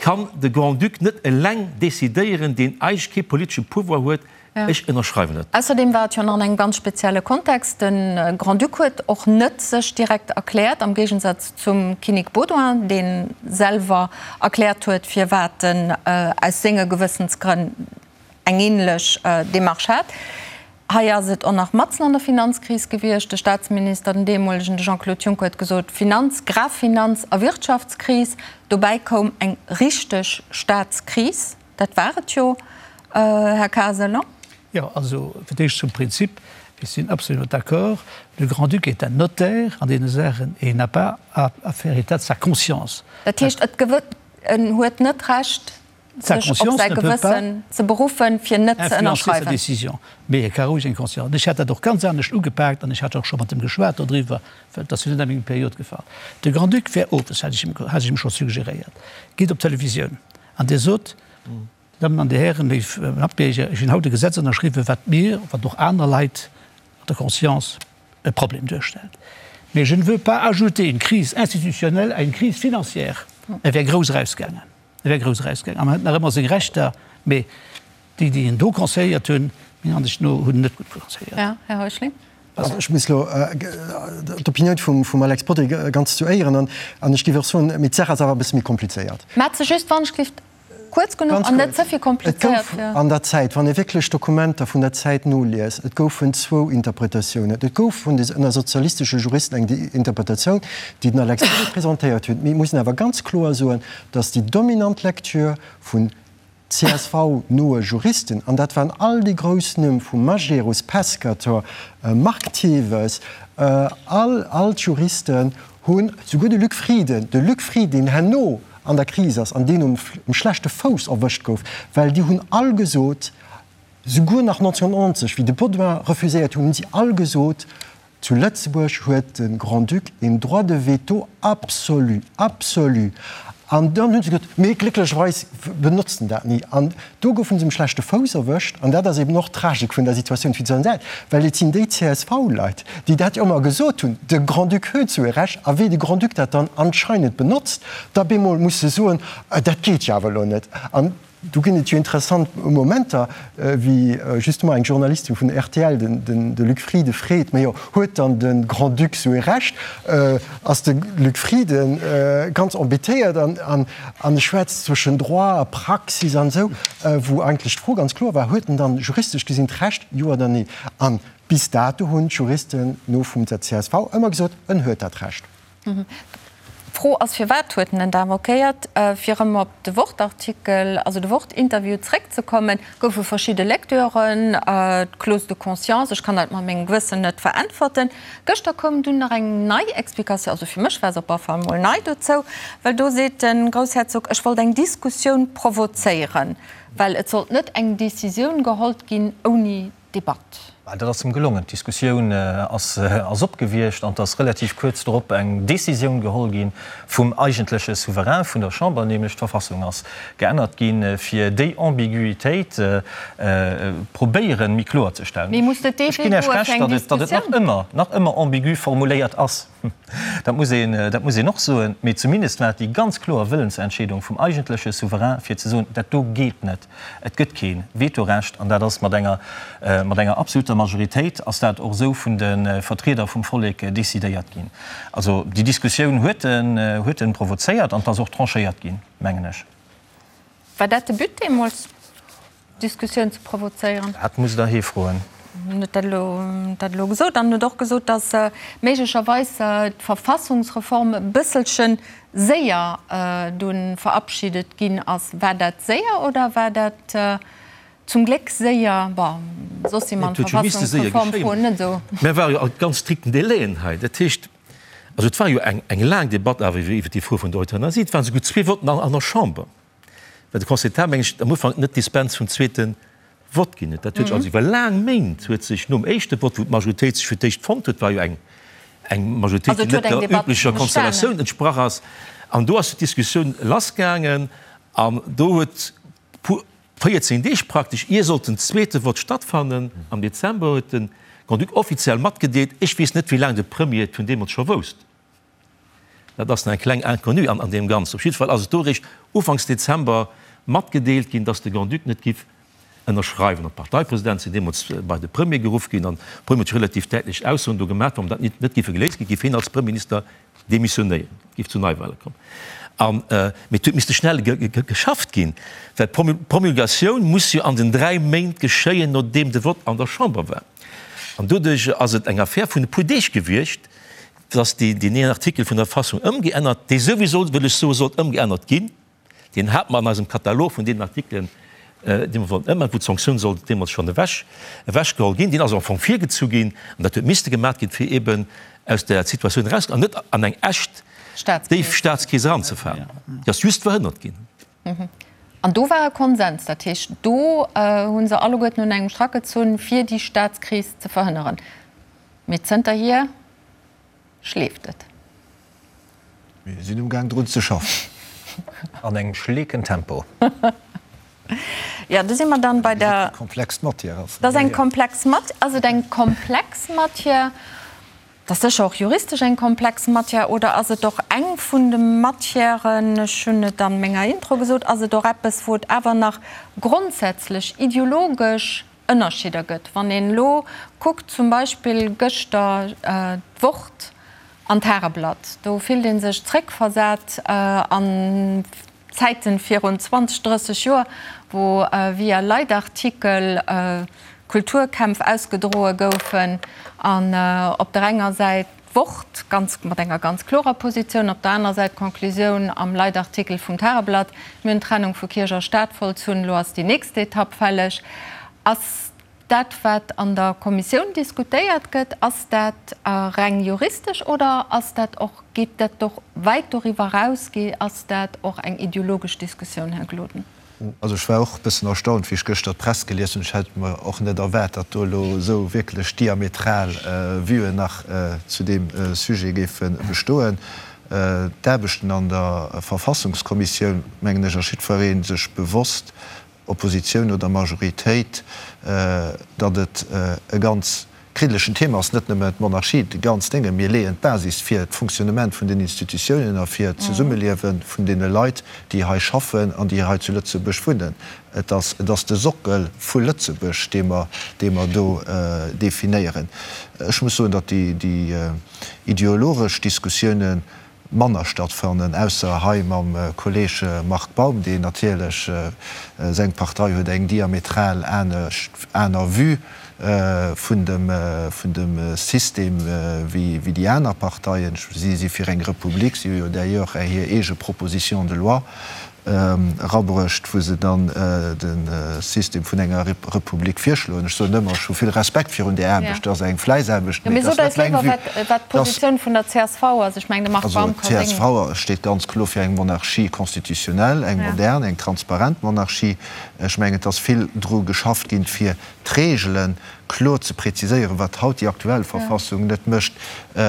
kann de Grand-Duc net eleng decidéieren, deen eigentlech kee politesche Pouvoir huet. Ech ënnerschreiwen dat. Ausserdeem war et jo nach an engem ganz spezielle Kontext. De Grand-Duc huet och net sech direkt erkläert, am Géigensaz zum Kinnek Baudouin, dee selwer erkläert huet, firwat en aus senge Gewëssensgrënn eng änlech Demarche hat. Hei ass et och nach matzen an der Finanzkris gewiescht. De Staatsminister, den deemolegen, de Jean-Claude Juncker, huet gesot, Finanz-, Grafinanz a Wirtschaftskris. Dobäi koum eng richteg Staatskris. Dat war et jo, Här Kasel, non? Jo, also fir d'éischt zum Prinzip, Ech sinn absolument d'accord, le Grand-Duc est un notaire an deene Saachen et il n'a pas à faire état de sa conscience. Dat heescht, et en huet net d'Recht, sech op säi Gewëssen ze beruffen, fir net ze ënnerschreiwen. Mee e ka roueg eng Conscience. An ech hätt dat och ganz anescht ugepaakt an ech hat och scho mat em geschwat dodriwwer, well et ass jo net a meng Period gefall. De Grand-Duc wär owes, hat ech him, hat ech him scho suggeréiert, geet op d'Televisioun an Dir sot, Dir Dammen an Dir Hären, léif Matbierger, ech hunn haut e Gesetz ënnerschriwwen, wat mir, wat och aner Leit an der Conscience e Problem duerstellt. Mais je ne veux pas ajouter une crise institutionnelle à une crise financière. E wär grouss erausgaangen. E wär grouss erausgaangen. An en huet nach ëmmer seng Rechter, mee déi, déi en do conseilléiert hunn, menger Ansicht no, hunn en net gutt conseilléiert. Ja, Här Heuschling. Also ech muss elo d'Opinioun vum Alex Bodry ganz zu Éieren an an ech géif och soen, mee d'Saach ass awer e bësse méi komplizéiert. Mä ze just, wann ech gelift, kuerz genuch an net ze vill komplizéiert fir. Et gouf an der Zäit, wann ee wierklech d'Dokumenter vun der Zäit noliest, et goufen zwou Interpretatiounen. Et gouf vun de ënner sozialistesche Juristen eng Interpretatioun, déi den Alex Bodry presentéiert huet. Mee et muss een awer ganz kloer soen, datt déi dominant Lecture vun CSV-noe Juristen, an dat waren all déi grouss Numm vu Majerus, Pescator, Marc Thewes, all, all d'Juristen hunn, souguer de Luc Frieden, de Luc Frieden, deen herno an der Kris ass an deen um schlechte Fouss erwëscht gouf, well déi hunn all gesot, souguer nach 1990, wéi de Baudouin refuséiert hunn, hunn si all gesot, Zu Lëtzebuerg huet de Grand-Duc een Droit de veto absolu, absolu! An dann hu se gesot, mee glécklecherweis benotzt en dat ni. An do goufe se um schlechte Fouss erwëscht. An dat ass eben och d'Tragik vun der Situatioun fir d'Sonset, well et sinn déi CSV-Leit, déi dat jo ëmmer gesot hunn, de Grand-Duc huet esou e Recht. A wéi de Grand-Duc dat dann anscheinend benotzt, da bemol muss se soen, dat geet jo awer elo net. An Do ginn et jo interessant Momenter, wéi justement eng Journalistin vun rtl den de Luc Frieden freet, Mä jo, huet dann de Grand-Duc esou ee Recht? Ass de Luc Frieden ganz embêtéiert an e schwätzt zwëschen Droit a Praxis an esou, wou eigentlech d'Fro ganz kloer war, Huet en dann juristesch gesinn d'Recht, jo oder nee? An bis dato hunn d'Juristen no vum der csv ëmmer gesot, en huet dat Recht. D'Fro ass, Firwat huet en en da invoquéiert? Fir erëm op de Wort-Artikel, also de Wort-Interview zréckzekommen, goufe verschidde Lecturen, d'Clause de conscience, ech kann dat mat mengem Gewëssen net veräntwerten. Gëschter koum dunn nach eng nei Explikatioun, also fir mech war se op alle Fall emol nei dozou, well do seet de Groussherzog, ech wollt eng Diskussioun provozéieren, well et sollt net eng Decisioun gehollt ginn ouni Debatt. Dat ass em gelongen. D'Diskussioun ass opgewiescht an et ass relativ kuerz drop eng Décisioun geholl gi vum eigentleche Souverain vun der Chamber, nämlech d'Verfassung ass geännert ginn, fir déi Ambiguïtéit probéieren, méi kloer ze stellen. Ech ginn Iech Recht, datt et nach ëmmer, nach ëmmer ambigu formuléiert ass. Dat muss een, dat muss een och soen. Mee zumindest war et déi ganz kloer Wëllensentscheedung vum eigentleche Souverain, fir ze soen, dat do geet net. Et gëtt kee Vetorecht. An dat ass mat enger, mat enger absoluter Majoritéit ass dat och esou vun de Vertrieder vum Vollek decidéiert ginn. Also déi Diskussioun huet en, huet en provozéiert an et ass och tranchéiert ginn, mengen ech. War dat de But deemools? Diskussioun ze provozéieren. Dat musst Der hie froen. En huet dat elo, dat elo gesot an huet och gesot, datt méiglecherweis d'Verfassungsreform e bësselche séier dunn verabschiedet ginn ass. War dat séier oder war dat zum Gléck séier? Bon, soss si mer an d'Verfassungsreformfroen net esou. Mä ware jo a ganz strikten Délaiën hei. Dat heescht, also et war jo eng, eng laang Debatt awer iwwer déi Fro vun der Euthanasie. Et waren esouguer zwee Votten an der Chamber. Well de Conseil d'État, meng ech, am Ufank net d'Dispens vum zweete Vott ginn huet. Dat huet sech also iwwer laang Méint huet sech nom éischte Vott, wou d'Majoritéit sech fir d'éischt fonnt huet, war jo eng eng Majoritéit, déi net der üblecher Konstellatioun entsprach ass, an do ass d'Diskussioun lassgaangen an do huet puer 14 Deeg praktesch, ier sollt den zweete Vott stattfannen, am Dezember, huet de Grand-Duc offiziell matgedeelt, ech weess net, wéi laang de Premier et vun deemools scho wousst, Dat ass nach eng kleng Inconnue an deem Ganzen. Op jidde Fall ass et do eréischt ufanks Dezember matgedeelt ginn, dass de Grand-Duc net giff Ënnerschreiwen. An d'Parteipresidente sinn deemools bei de Premier geruff ginn an de Premier huet relativ däitlech Aussoen do gemaach, wann dat net géife geléist ginn, géif hien als Premierminister demissionéieren, et géif zu Neiwahle kommen. An, mee et huet misste schnell geschafft ginn, well d'Promulgatioun muss jo an den 3 Méint geschéien, nodeem de Vott an der Chamber war. An doduerch ass et eng Affär vun e puer Deeg gewiescht, dass deen een Artikel vun der Verfassung ëmgeännert, dee souwisou, wëll ech soen, sollt ëmgeännert ginn, Deen hate mer an eisem Katalog vun deenen Artikelen, déi mer wollten ëmänneren, wou d'Sanktioun sollt deemools schonn ewech, ewechgeholl ginn. Deen ass am Fong virgezu ginn an dat huet misste gemaat ginn, fir eeben aus där Situatioun erauszekommen an net an eng echt déif Staatskris eranzefalen. Déi ass just verhënnert ginn. An do war e Konsens. Dat heescht, do hu se alleguerten un engem Strack gezunn, fir déi Staatskris ze verhënneren. Mee zënterhier schleeft et. Mir sinn um Gaang drun ze schaffen. An engem schleeken Tempo. Jo, do si mer dann bei der. Wéi komplex d'Matière ass. Dat ass eng komplex Mat. Ass et eng komplex Matière? Dat ass sécher och juristesch eng komplex Matière. Oder ass et och eng vun de Matièren, ech hunn et a menger Intro gesot, ass et och eppes, wou et awer nach grondsätzlech ideologesch Ënnerscheeder gëtt? Wann een elo kuckt, zum Beispill gëschter d'Wort an d'Tageblatt, do fillt ee sech zréckversat an Zäiten virun 20, 30 Joer, wou via Leitartikel Kulturkämpf ausgedroe goufen an op der enger Säit d'Wort ganz mat enger ganz klorer Positioun, op der anerer Säit d'Conclusioun am Leitartikel vum Tageblatt, Mir hunn d'Trennung vu Kierch a Staat vollzunn, elo ass déi nächst Etapp fälleg. Ass dat, wat an der Kommissioun diskutéiert gëtt, ass dat reng juristesch oder ass dat och, geet dat och wäit doriwwer eraus, ass dat och eng ideologesch Diskussioun, Här Gloden? Also ech war och e bëssen erstaunt, wéi ech gëschter d'Press gelies hunn. Ech hätt mer och net erwaart, datt do elo esou wierklech diametral Vuen nach zu deem Sujet géife bestoen. D'Aarbechten an der Verfassungskommissioun, mengen ech, ass jiddweree sech bewosst, Oppositioun oder Majoritéit, datt et e ganz kriddelegen Thema ass, net nëmme d'Monarchie, déi ganz Dénge. Mir leeën d'Basis fir d'Fonctionnement vun den Institutiounen a fir d'Zesummeliewe vun deene Leit, déi hei schaffen an déi hei zu Lëtzebuerg wunnen. Et ass, et ass de Sockel vu Lëtzebuerg, dee mer, dee mer do definéieren. Ech muss soen, datt déi, déi ideologesch Diskussiounen manner stattfannen, ausser hei mam Kolleg Marc Baum, deen natierlech, seng Partei huet eng diametral anescht, aner Vue vun dem, vun dem System wéi déi aner Parteien. Si si fir eng Republik, si hu jo d'ailleurs hir eege Proposition de loi erabruecht, wou se dann de System vun enger Republik virschloen. Ech soen ëmmer, ech hu vill Respekt virun där Aarbecht, dat ass eng Fläissaarbecht, mee et ass net meng Vue. Wat d'Positioun vun der csv ass. Ech mengen, de Marc Baum ka seng. Also d'CSV steet ganz kloer fir eng Monarchie constitutionnelle, eng modern, eng transparent Monarchie. Ech mengen, et ass vill dru geschafft ginn, fir d'Regelen kloer ze präziséieren, wat haut déi aktuell Verfassung net mécht,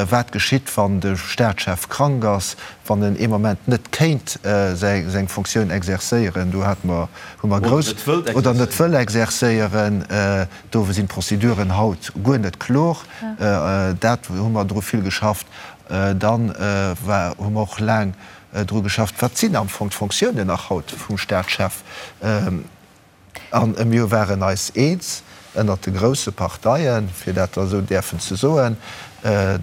wat geschitt, wann de Staatschef krank ass, wann en ee Moment net kéint seng Fonctioun exercéieren, do hate mer, hu mer grouss, oder net wëll exercéieren, do sinn d'Prozeduren haut guer net kloer, dat hu mer dru vill geschafft. Dann war, hu mer och laang dru geschafft, wat sinn am Fong d'Fonctiounen nach haut vum Staatschef? A mir waren eis eens ënnert de grousse Parteien, fir dat da esou däerfen ze soen,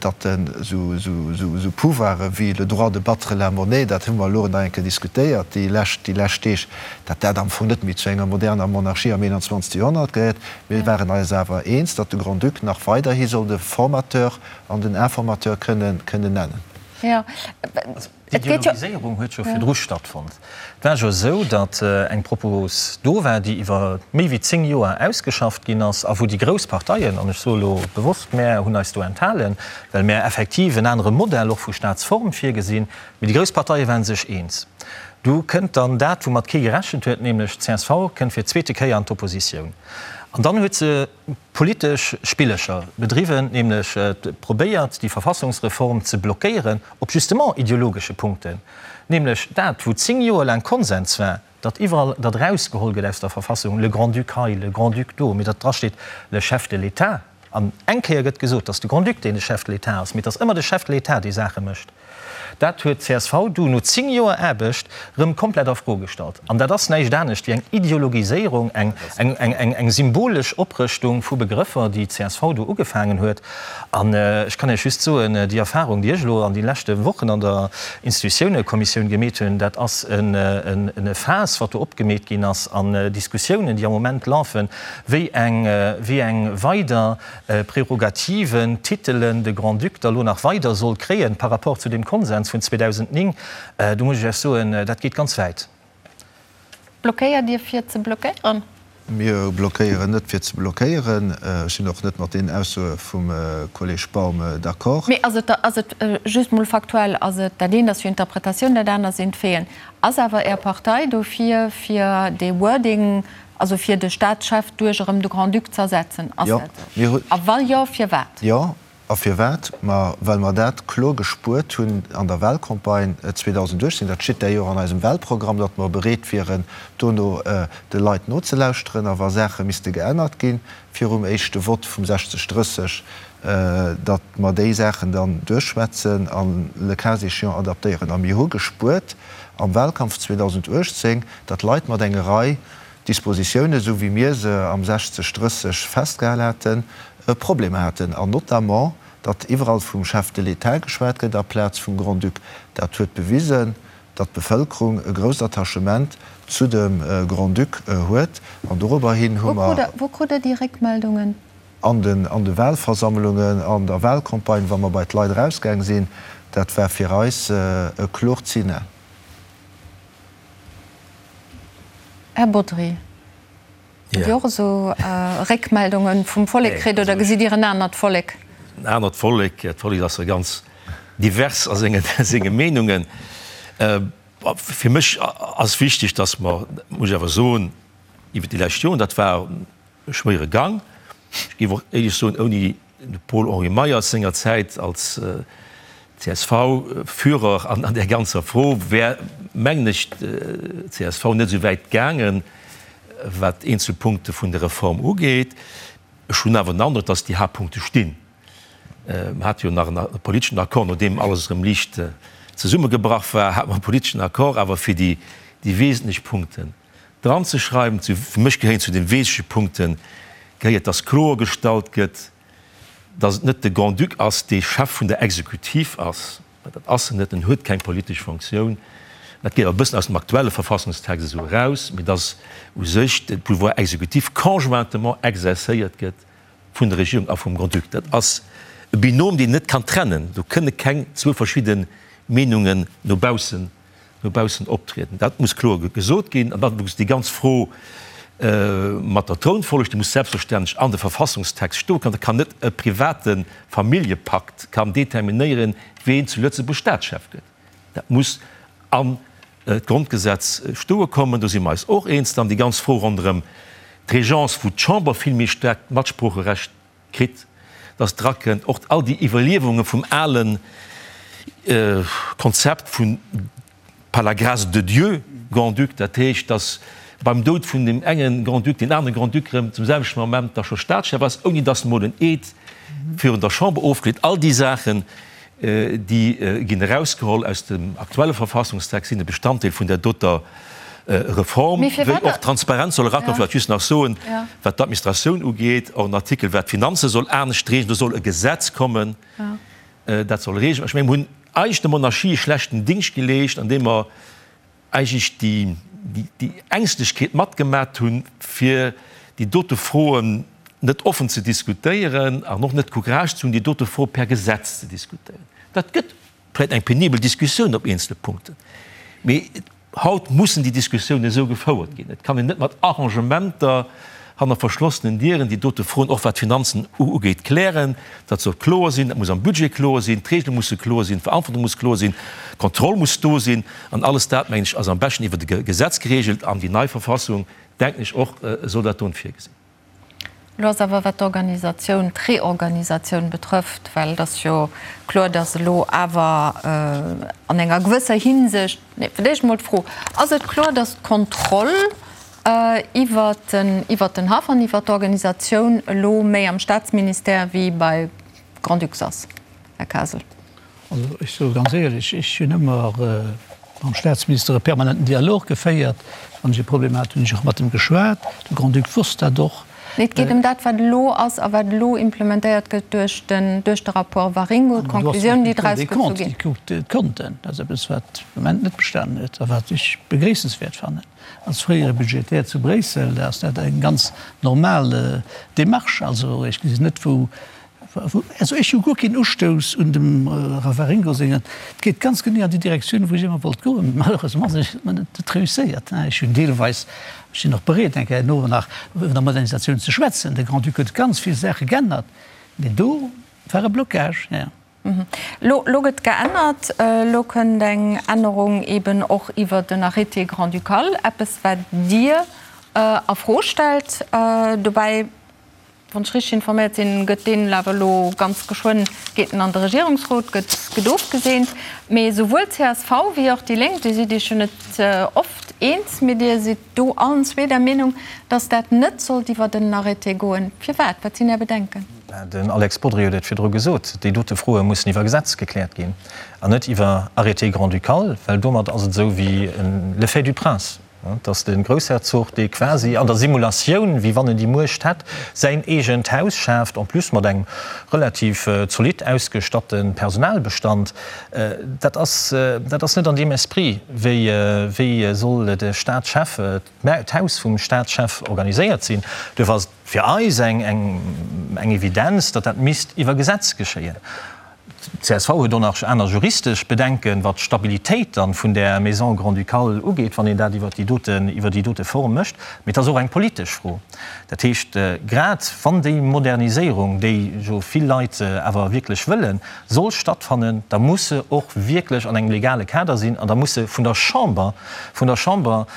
datt esou Pouvoire wéi le droit de battre la monnaie, dat hu mer elo nach eng Kéier diskutéiert déi lescht, déi lescht Deeg, datt dat am Fong net méi zu enger moderner Monarchie am 21. Joerhonnert gehéiert. Mir waren eis awer eens, datt de Grand-Duc nach weiderhi soll de Formateur an den Informateur kënnen nennen. D'Ideologiséierung huet jo virdru stattfonnt. Et war jo esou, datt eng Propos do war, déi iwwer méi wéi 10 Joer ausgeschafft ginn ass a wou déi grouss Parteien, an ech soe elo bewosst mär, hunn eis do enthalen, well mär effektiv en anere Modell och vu Staatsform virgesinn, mee déi grouss Parteie ware sech eens. Du kënnt dann dat, woumat kee gerechent huet, nämlech d'CSV kënnt fir d'zweete Kéier an d'Oppositioun. An dann huet se politesch Spillecher bedriwwen, nämlech probéiert, déi Verfassungsreform ze blockéieren op justement ideologesche Punkten, nämlech dat, wou 10 Joer laang Konsens war, datt iwwerall dat erausgeholl gëtt aus der Verfassung, le Grand-Duc hei, le Grand-Duc do, mee datt drasteet le Chef de l'État. An eng Kéier gëtt gesot, datt de Grand-Duc deen de Chef de l'État ass, mee et ass ëmmer de Chef de l'État, dee Saache mécht. Dat huet d'CSV du no 10 Joer Aarbecht rëm komplett a Fro gestallt. An dat ass näischt anescht wéi eng Ideologiséierung, eng, eng, eng, eng symbolesch Oprëschtung vu Begrëffer, déi d'CSV do ugefaangen huet. An ech kann Iech just soen, déi Erfahrung, déi ech elo an de leschte Wochen an der Institutiounekommissioun gemeet hunn, dat ass e Faass, wat do opgemeet ginn ass, an Diskussiounen, déi am Moment lafen, wéi eng, wéi eng weider Prärogativen, Titelen de Grand-Duc da lo nach weider soll kréien par rapport zu deem Konsens vun 2009, do muss ech Iech soen, dat geet ganz wäit. Blockéiert Dir fir ze blockéieren? Mir blockéieren net fir ze blockéieren. Ech sinn och net mat deenen Aussoe vum Kolleg Baum d'accord. Mee ass et, ass et, just mol faktuell, ass et, dat eent ass jo Interpretatioun, dat anert sinn d'Faiten, ass awer Är Partei dofir, fir dee Wording Also fir de Staatschef duerch erëm de Grand-Duc z'ersetzen, ass Jo, dat esou? mir hu. A wa jo, firwat? Jo, a firwat? Ma well mer dat kloer gespuert hunn an der Wahlcampagne 2018, dat steet d'ailleurs an eisem Wahlprogramm, datt mer bereet wieren, dono de Leit nozelauschteren a wa Saache misste geännert gi virum éischte Vott vum 60, 30, datt mer déi Saachen dann duerchschwätzen an le cas échéant adaptéieren. A mir hu gespuert am Wahlkampf 2018, datt Leit mat enger Rei Dispositiounen, esou wéi mir se am 60, 30 festgehal haten, e Problem haten, an notamment, datt iwwerall vum Chef de l'État geschwat gëtt aplaz vum Grand-Duc. Dat huet bewisen, datt d'Bevëlkerung e grousst Attachement zu dem Grand-Duc huet, an dorobber hin hu mer. Wou krut Der déi Réckmeldungen? An den an de Wahlversammlungen, an der Wahlcampagne, wa mer bei d'Leit erausgaang sinn, dat war fir eis e kloert Signal. Här Bodry, hutt Dir och esou Réckmeldunge vum Vollek kritt oder gesitt Dir en anert Vollek? En anert Vollek? D'Vollek ass jo ganz divers a senge Meenungen. Fir mech ass wichteg, datt mer, muss ech awer soen, iwwer déi lescht Joren, dat war e schwéiere Gang, ech géif och éierlech soen, ouni de Paul-Henri Meyers sengerzäit als CSV-Führer an där ganzer Fro wär, mengen ech, d'CSV net esou wäit gaangen, wat eenzel Punkte vun der Reform ugeet. Ech hunn awer den Androck, dass déi Haaptpunkte stinn. Mer hate jo nach e politeschen Accord, nodeem alles erëm liicht zesummegebrach war, hate mer e politeschen Accord awer fir déi wesentlech Punkten dranzeschreiwen. Fir mech gehéieren zu de wesentleche Punkte gehéiert, dass kloergestallt gëtt, dass et net de Grand-Duc ass, dee Chef vun der Exekutiv ass, well dat ass en net, en huet keng politesch Fonctioun, dat geet awer e bëssen aus dem aktuelle Verfassungstext esou eraus, mee dass u sech de Pouvoir exécutif conjointement exercéiert gëtt vun der Regierung a vum Grand-Duc. Dat ass e Binôme, deen een net kann trennen. Do kënne keng zwou verschidde Meenungen no baussen no baussen optrieden. Dat muss kloer gesot ginn. An dann muss déi ganz Fro mat der Trounfolleg, déi muss selbstverständlech an de Verfassungstext stoen. Da kann net e private Familljepakt kann determinéieren, ween zu Lëtzebuerg Staatschef gëtt. Dat muss an d'Grondgesetz stoe kommen. Do si mer eis och eens. Dann déi ganz Fro ronderëm d'Régence, wou d'Chamber vill méi staarkt Matsproocherecht kritt, dass drakënnt, och all déi Iwwerliewunge vum ale Konzept vun par la grâce de Dieu Grand-Duc, dat heescht, dass beim Doud vun deem enge Grand-Duc deen anere Grand-Duc erëm zum selwechten Moment da scho Staatschef ass, ouni dass emol en Eed virun der Chamber ofgeleet. All déi Saachen, Déi ginn erausgeholl aus dem aktuelle Verfassungstext, sinn e Bestanddeel vun där doter Reform, wéi och Transparenz soll erakommen. Vläicht just nach soen, wat d'Administratioun ugeet, och en Artikel, wat d'Finanze soll anescht regeln. Do soll e Gesetz kommen, dat soll regeln. Ech mengen, mir hunn eigentlech der Monarchie e schlechten Dingscht geleescht, andeem mer eigentlech déi Ängschtlechkeet matgemat hunn, fir déi dote Froen net offen ze diskutéieren an och net d'Courage ze hunn, déi dote Fro per Gesetz ze diskutéieren. Dat gëtt vläicht eng penibel Diskussioun op eenzele Punkten, mee haut mussen déi Diskussiounen esou gefouert ginn. Et kann een net mat Arrangementer hanner verschlossenen Dieren déi dote Froen, och wat d'Finanzen ugeet, klären. Dat soll kloer sinn, dat muss am Budget kloer sinn, d'Regele musse kloer sinn, d'Verantwortung muss kloer sinn, d'Kontroll muss do sinn. An alles dat, mengen ech, ass am beschten iwwert e Gesetz geregelt. An déi nei Verfassung, denken ech och, soll dat don virgesinn. Elo ass awer, wat d'Organisatioun, d'Reorganisatioun betrëfft, well et ass jo kloer, datt elo awer an enger gewësser Hinsicht, nee, fir d'éischt emol d'Fro, Ass et kloer, datt d'Kontroll iwwert den, iwwert den Haff an iwwert d'Organisatioun elo méi am Staatsministère wéi bei Grand-Ducs ass, Här Kasel? Also ech soe ganz éierlech, ech hunn ëmmer mam Staatsminister e permanenten Dialog geféiert. Wann ech e Problem hat, hunn ech och mat em geschwat. De Grand-Duc wosst dat och. Nee, et geet ëm dat, wat elo ass a wat elo implementéiert gëtt duerch den, duerch de Rapport Waringo, d'Konklusiounen, déi draus gezu ginn. Déi kuckt d'Konten. Dat ass eppes, wat de Moment net bestanen huet a wat ech begréissenswäert fannen. Als fréiere Budgetär zu Bréissel ass dat eng ganz normal Démarche. Also ech gesinn net, wou Also ech hu guer keen Ustouss un dem Ravaringo sengen. Et geet ganz genee an déi Direktioun, wou ech ëmmer wollt goen. Malheureusement ass et mer net réusséiert. Ech hunn deelweis, ech sinn och bereet eng Kéier herno nach iwwer der Modernisatioun ze schwätzen, de Grand-Duc huet ganz vill Saache geännert, mee do war e Blocage. Lo, lo gëtt geännert. Elo kënnt eng Ännerung eben och iwwer den Arrêté grand-ducal, eppes wat Dir a Fro stellt. Dobäi Wann ech richteg informéiert sinn, gëtt deen awer elo ganz geschwënn, geet en an de Regierungsrot, gëtt, gëtt ofgeseent. Mee souwuel csv wéi och déi Lénk, Dir sidd Iech jo net oft eens, mee Dir sidd do allen zwee der Meenung, datt dat net sollt iwwert en Arrêté goen. Firwat? Wat sinn Är Bedenken? Den Alex Bodry huet et virdru gesot, déi dote Froe mussen iwwer Gesetz gekläert ginn an net iwwer Arrêté grand-ducal, well domat ass et esou wéi le fait du prince. Dass de Groussherzog, dee quasi an der Simulatioun, wéi wann en déi Muecht hätt, säin eegent Haus schaaft, en plus mat engem relativ zolidd ausgestatte Personalbestand, dat ass, dat ass net an deem Esprit, wéi, wéi soll de Staatschef, d'Haus vum Staatschef organiséiert sinn. Duerfir ass et fir eis eng, eng Evidenz, datt dat misst iwwer Gesetz geschéien. D'CSV huet och nach aner juristesch Bedenken, wat d'Stabilitéit dann vun där Maison grand-ducale ugeet, wann een dat iwwer déi doten, iwwer déi dote Form mécht. Mee et ass och eng politesch Fro. Dat heescht, grad wann déi Moderniséierung, déi jo vill Leit awer wierklech wëllen, soll stattfannen, da muss se och wierklech an engem legale Kader sinn an da muss se vun der Chamber, vun der Chamber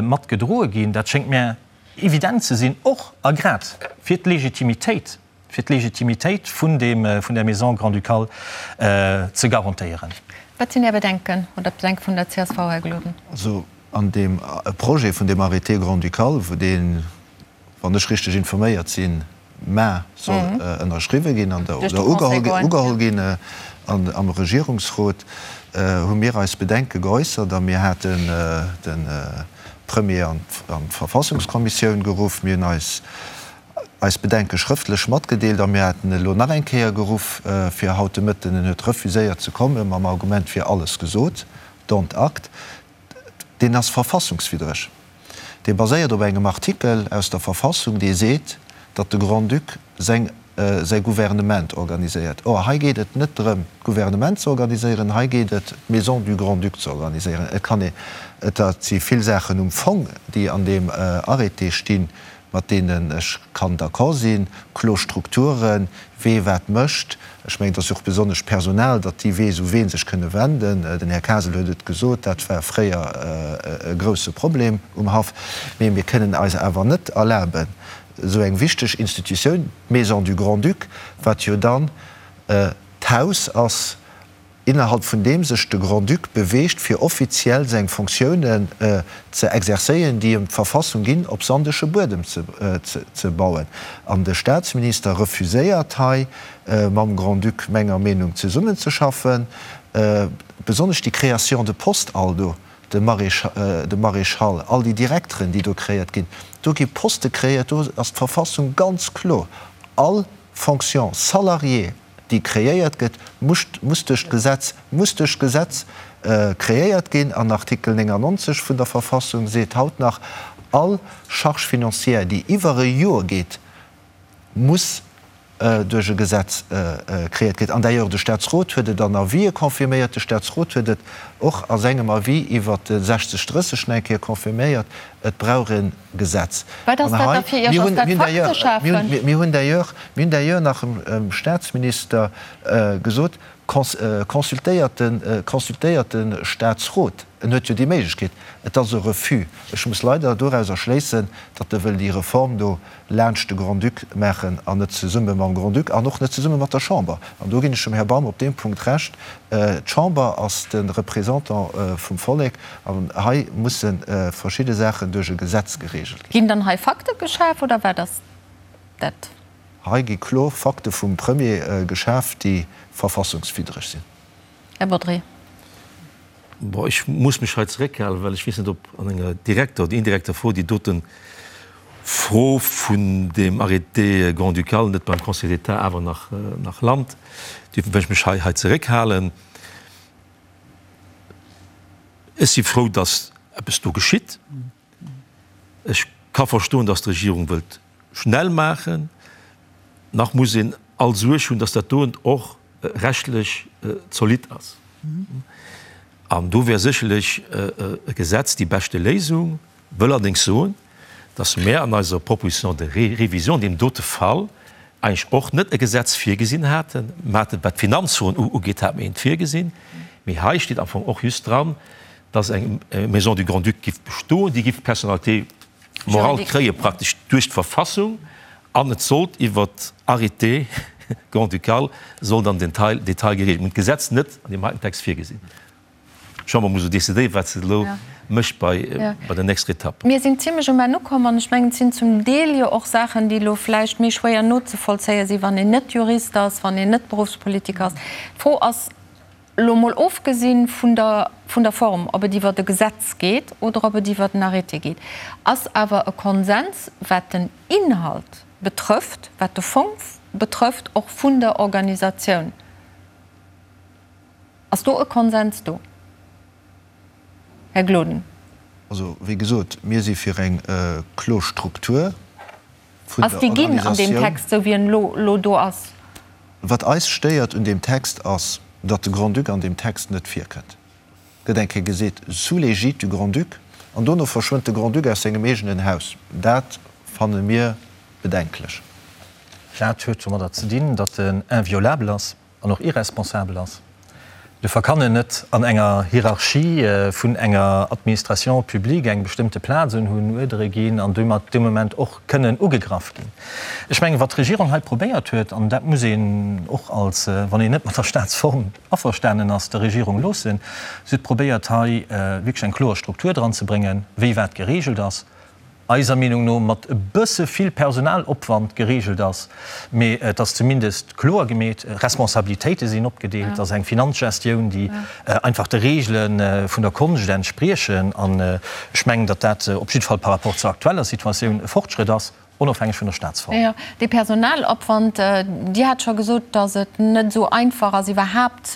mat gedroe ginn. Dat schéngt mär evident ze sinn, och a grad fir d'Legitimitéit. fir d'Legitimitéit vun deem, vun der Maison grand-ducale ze garantéieren. Wat sinn Är Bedenken oder d'Bedenke vun der csv, Här Gloden? Also an deem Projet vun deem Arrêté grand-ducal, wou deen, wann ech richteg informéiert sinn, mar soll ënnerschriwwe ginn an der, oder ugeholl ginn am Regierungsrot, hu mir eis Bedenke geäussert a mir haten de Premier an d'Verfassungskommissioun geruff. Mir hunn eis eis Bedenke schrëftlech matgedeelt a mir haten elo nach eng Kéier geruff fir haut de Mëtten. En huet refuséiert ze kommen, mam Argument, et wier alles gesot. Dont acte. Deen ass verfassungswiddreg. Dee baséiert op engem Artikel aus der Verfassung, dee seet, datt de Grand-Duc seng säi Gouvernement organiséiert. Or, hei geet et net drëm, d'Gouvernement ze organiséieren, hei geet et, d'Maison du Grand-Duc ze organiséieren. Et kann ee, et si vill Saachen um Fong, déi an deem Arrêté stinn, mat deenen ech kann d'accord sinn, kloer Strukturen, wee wat mécht. Ech mengen, et ass jo och besonnesch d'Personal, datt déi weess, u wee sech kënne wenden. Den Här Kasel huet et gesot, dat war fréier e grouse Problem um Haff. Mee mir kënnen eis awer net erlaben, esou eng wichteg Institutioun, d'Maison du Grand-Duc, wat jo dann d'Haus ass, innerhalb vun deem sech de Grand-Duc beweegt, fir offiziell seng Fonctiounen ze exercéieren, déi em d'Verfassung ginn, op sandege Buedem ze bauen. An de Staatsminister refuséiert hei, mam Grand-Duc menger Meenung zesummenzeschaffen, besonnesch déi Création de postes all do, de Maréchal, all déi Direkteren, déi do créiert ginn. Do gi Poste créiert, do ass d'Verfassung ganz kloer, all Fonction salariée, déi kreéiert gëtt, muss muss duerch d'Gesetz muss duerch d'Gesetz kreéiert ginn. An Artikel 99 vun der Verfassung seet haut nach, All Charge financière, déi iwwer e Joer geet, muss duerch e Gesetz kreéiert ginn. An d'ailleurs, de Statsrot huet et an Avisë confirméiert, de Statsrot huet et och a sengem Avis iwwert de 60 30 nach eng Kéier confirméiert, Et brauch e Gesetz. Wat ass dat da fir Iech? Ass dat Fakte schafen? Mir hunn d'ailleurs, mir hunn d'ailleurs nach dem Statsminister gesot, Consultéiert de, consultéiert de Statsrot. En huet jo déi Méiglechkeet. Et ass e Refus. Ech muss leider dorauser schléissen, datt e wëll déi Reform do laanscht de Grand-Duc maachen an net zesumme mam Grand-Duc an och net zesumme mat der Chamber. An do ginn ech dem Här Baum op deem Punkt Recht, D'Chamber ass de Représentant vum Vollek an hei musse verschidde Saachen duerch e Gesetz geregelt ginn. Ginn dann hei Fakte geschaf oder wat ass dat? Hei gi kloer Fakte vum Premier geschaf, déi verfassungswiddreg sinn. Här Bodry. Bon, ech muss mech hei zeréckhalen, well ech weess net, ob an enger direkter oder indirekter Fro déi dote Fro vun deem Arrêté grand-ducal net beim Conseil d'État awer nach, nach lant. Duerfir wëll ech mech hei, hei zeréckhalen. Ech si frou, dass eppes do geschitt. Ech ka verstoen, dass d'Regierung wëllt schnell maachen. Nach muss een all Suerg hunn, dass dat doen och rechtlech zolidd ass. An do wär sécherlech e Gesetz déi beschte Léisung. Wëll allerdéngs soen, dass mär an eiser Proposition de révision an deem dote Fall eigentlech och net e Gesetz virgesinn haten. Mer haten, wat d'Finanzfroen ugeet, hate mer eent virgesinn. Mee hei steet am Fong och just dran, dass eng Maison du Grand-Duc giff bestoen, déi giff d'Personnalité morale kréie praktesch duerch d'Verfassung an et sollt iwwer Arrêté grand-ducal sollt an den Detail geregelt. Mir hunn d'Gesetz net an deem heiten Text virgesinn. D'Chamber muss elo decidéieren, wat se elo mécht bei der nächster Etapp. Mir sinn zimlech um Enn ukomm an ech mengen, et sinn zum Deel jo och Saachen, déi elo vläicht méi schwéier nozevollzéie sinn, wann een net Jurist ass, wann een net Beruffspolitiker ass. D'Fro ass, Elo mol ofgesinn vun der vun der Form, ob et iwwert e Gesetz geet oder ob et iwwert en Arrêté geet, ass awer e Konsens, wat den Inhalt betrëfft, wat de Fong betrëfft, och vun der Organisatioun. Ass do e Konsens do, Här Gloden? Also, wéi gesot, mir si fir eng kloer Struktur vun Ass der déi ginn an deem Organisatioun. Text, esou wéi en elo elo do ass? Wat eis stéiert un deem Text ass, datt de Grand-Duc an deem Text net virkënnt. Gëtt eng Kéier geseet, sous l'égide du Grand-Duc, an dono verschwënnt de Grand-Duc aus sengem eegenen Haus. Dat fanne mir bedenklech. Dat huet domadder ze dinn, datt en inviolabel ass. an och irresponsabel ass. Duerfir kann en net an enger Hierarchie vun enger Administration publique eng bestëmmte Plaz unhunn, Uerdere ginn an domat dee Moment och kënnen ugegraff ginn. Ech mengen, wat d'Regierung hei probéiert huet, an dat muss een och als, wann een net mat der Staatsform averstanen ass, der Regierung loossen, si huet probéiert hei wierklech eng kloer Struktur dranzebréngen, wéi wat geregelt ass, eiser Meenung no mat e bësse vill Personalopwand geregelt ass, mee et ass zumindest kloer gemeet, Responsabilitéite sinn opgedeelt, et ass eng Finanzgestioun, déi einfach de Regele vun der Konscht entspriechen. An ech mengen, datt dat op jidde Fall par rapport zur aktueller Situatioun e Fortschrëtt ass, onofhängeg vun der Staatsform. Jo, dee Personalopwand, Dir hat scho gesot, datt et net esou einfach ass iwwerhaapt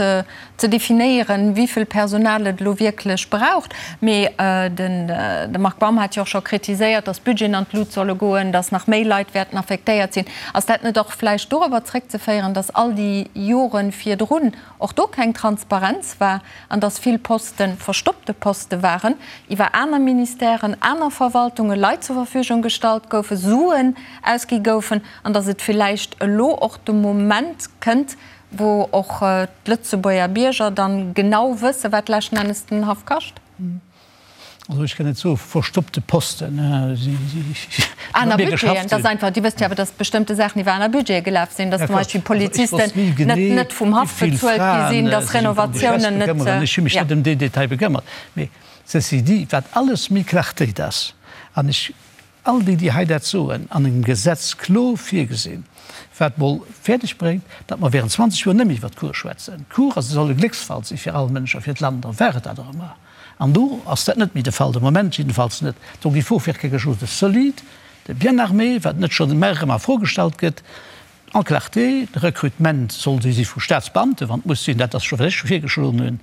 ze definéieren, wéi vill Personal et elo wierklech braucht. Mee de Marc Baum hat jo och scho kritiséiert, datt d'Budgeten an d'Lut solle goen, datt nach méi Leit wäerten affektéiert sinn. Ass dat net och vläicht dorobber zréckzeféieren, datt all déi Jore virdrun och do keng Transparenz war an datt vill Poste verstoppte Poste waren, iwwer aner Ministèren, aner Verwaltunge Leit zur Verfügung gestallt goufen, Suen ausgi goufen an datt et villäicht elo och de Moment kënnt, wou och d'Lëtzebuerger Bierger dann genau wëssen, wat leschten Ennes den Haff kascht? Also ech kann net soe verstoppte Posten. Aner Budgeten, dass einfach, Dir wësst jo awer, dass bestëmmte Saachen iwwer aner Budgete gelaf sinn, dass zum Beispill Polizisten net net vum Haff bezuelt gi sinn, dass Renovatiounen net. Ech hu mech net ëm deen Detail bekëmmert. Mee ceci dit, wat alles méi Clartéit ass, an ech All déi, déi hei dat soen, an engem Gesetz kloer virgesinn, wat mol fäerdeg bréngt, datt mer während 20 Joer net méi iwwert d'Cour schwätzen. D'Cour ass, soll e Glécksfall si fir all Mënsch a fir d'Land, a war et dat och ëmmer. An do ass dat net méi de Fall, de Moment jiddefalls net. Donc il faut faire quelque chose de solide, de bien armé, wat net schonn ëmmer erëm a Fro gestallt gëtt, en clarté. De Recrutement soll si vu Staatsbeamten, wann et muss sinn, dat ass scho wat ech virgeschloen hunn,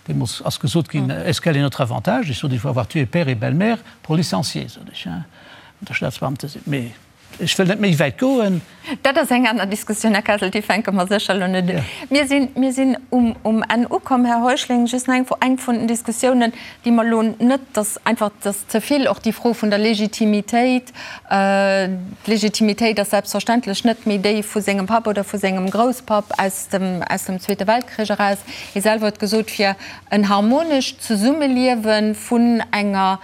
Deemools ass gesot ginn, Est-ce quel est notre avantage? Ech sot, Il faut avoir tué père et belle-mère pour licencier, sot ech, hein, wann Der Staatsbeamte sidd. Mee ech wëll net méi wäit goen. Dat ass eng aner Diskussioun, Här Kessel, déi fänke mer sécher elo net un. Mir sinn, mir sinn um, um Enn ukomm. Här Heuschling, just nach eng Fro, Eng vun den Diskussiounen, déi mer elo net, dass einfach, dass ze vill och déi Fro vun der Legitimitéit, D'Legitimitéit ass selbstverständlech net méi déi vu sengem Papp oder vu sengem Grousspapp aus dem, aus dem Zweete Weltkrich eraus. Hie selwer huet gesot, fir en harmonescht Zesummeliewe vun enger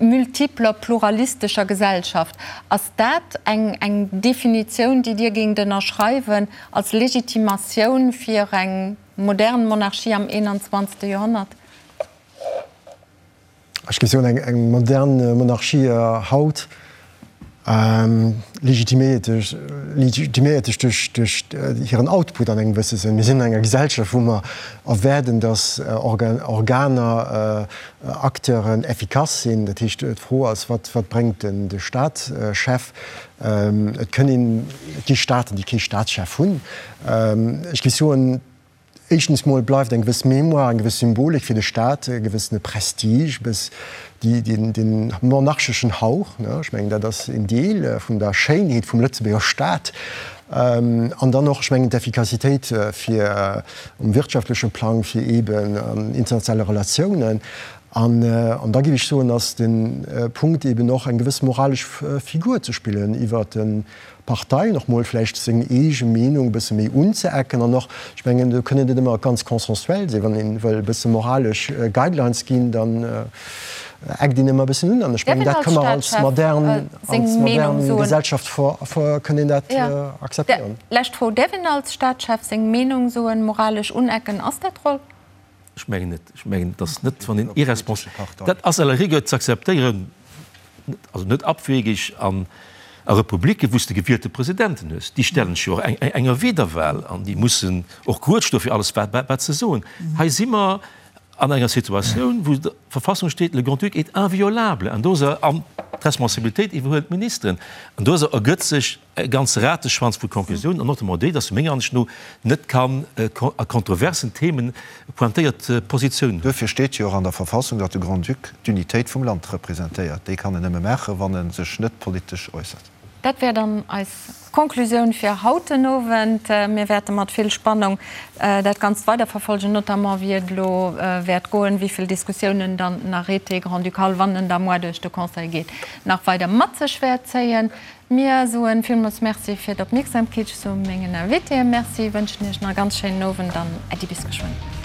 multipler, pluralistescher Gesellschaft. Ass dat eng, eng Definitioun, déi Dir géingt ënnerschreiwen als Legitimatioun fir eng modern Monarchie am 21. Joerhonnert? Ech géif soen, eng modern Monarchie haut. Legitiméiert sech duerch hiren Output an engem gewësse Sënn. Mir sinn an enger Gesellschaft, wou mer erwaarden, datt Organer, Acteuren effikass sinn. Dat heescht, d'Fro ass, Wat bréngt de Staatschef? Et kënn een, et gi Staaten, déi kee Staatschef hunn. Ech géif soen, Éischtens mol bleift eng gewëss Mémoire, eng gewëss Symbolik fir de Staat, e gewëssene Prestige, e bëss dee monarcheschen Hauch, ne, ech mengen dat ass een Deel vun der Schéinheet vum Lëtzebuerger Staat. An dann och, ech mengen, d'Effikassitéit fir um wirtschaftleche Plang, fir eeben an internationale Relatiounen. An da géif ech soen, ass de Punkt eeben och eng gewëss moralesch Figur ze spillen iwwert de Parteien och mol vläicht seng eege Meenung e bësse méi unzeecken an och, ech mengen, do kënn et net ëmmer ganz consensuel sinn, wann ee wëll e bësse moralesch Guidelines ginn, dann eckt een ëmmer e bëssen un an ech mengen, dat ka mer als modern, als modern Gesellschaft kënn een dat akzeptéieren. Lescht Fro, Däerf een als Staatschef seng Meenung soen, moralesch unecken? Ass dat d'Roll? Ech mengen net. Ech mengen, et ass net, wann een irrespons-, dat ass à la rigueur ze akzeptéieren, also net abwegig an a Republiken, wou s de gewielte Presidenten hues. Déi stellen sech jo och enger Wiederwahl an déi mussen och grued stoe fir alles, wat se soen. Hei si mer an enger Situatioun, wou der Verfassung steet, Le Grand-Duc est inviolable an do ass er, an d'Responsabilitéit iwwerhuelen d'Ministeren, an do ass er, ergëtt sech e ganze Rateschwanz vu Konklusiounen, an notamment déi, dass menger Ansicht no net kann a kontroversen Themen pointéiert Positiounen hunn. Duerfir steet jo och an der Verfassung, datt de Grand-Duc d'Unitéit vum Land representéiert. Déi kann en nëmme maachen, wann e sech net politesch äussert. Dat wär dann eis Konklusioun fir haut den Owend. Mir wäerte mat vill Spannung dat Ganzt weiderverfolgen, notamment wéi et elo wäert goen, wéi vill Diskussiounen dann den Arrêté grand-ducal, wann en da moar duerch de Conseil geet, nach weider mat sech wäert zéien. Mir soen villmools Merci fir d'Opmierksamkeet. Ech soe mengen Invitéen Merci, wënschen iech nach e ganz schéinen Owend an Äddi bis geschwënn.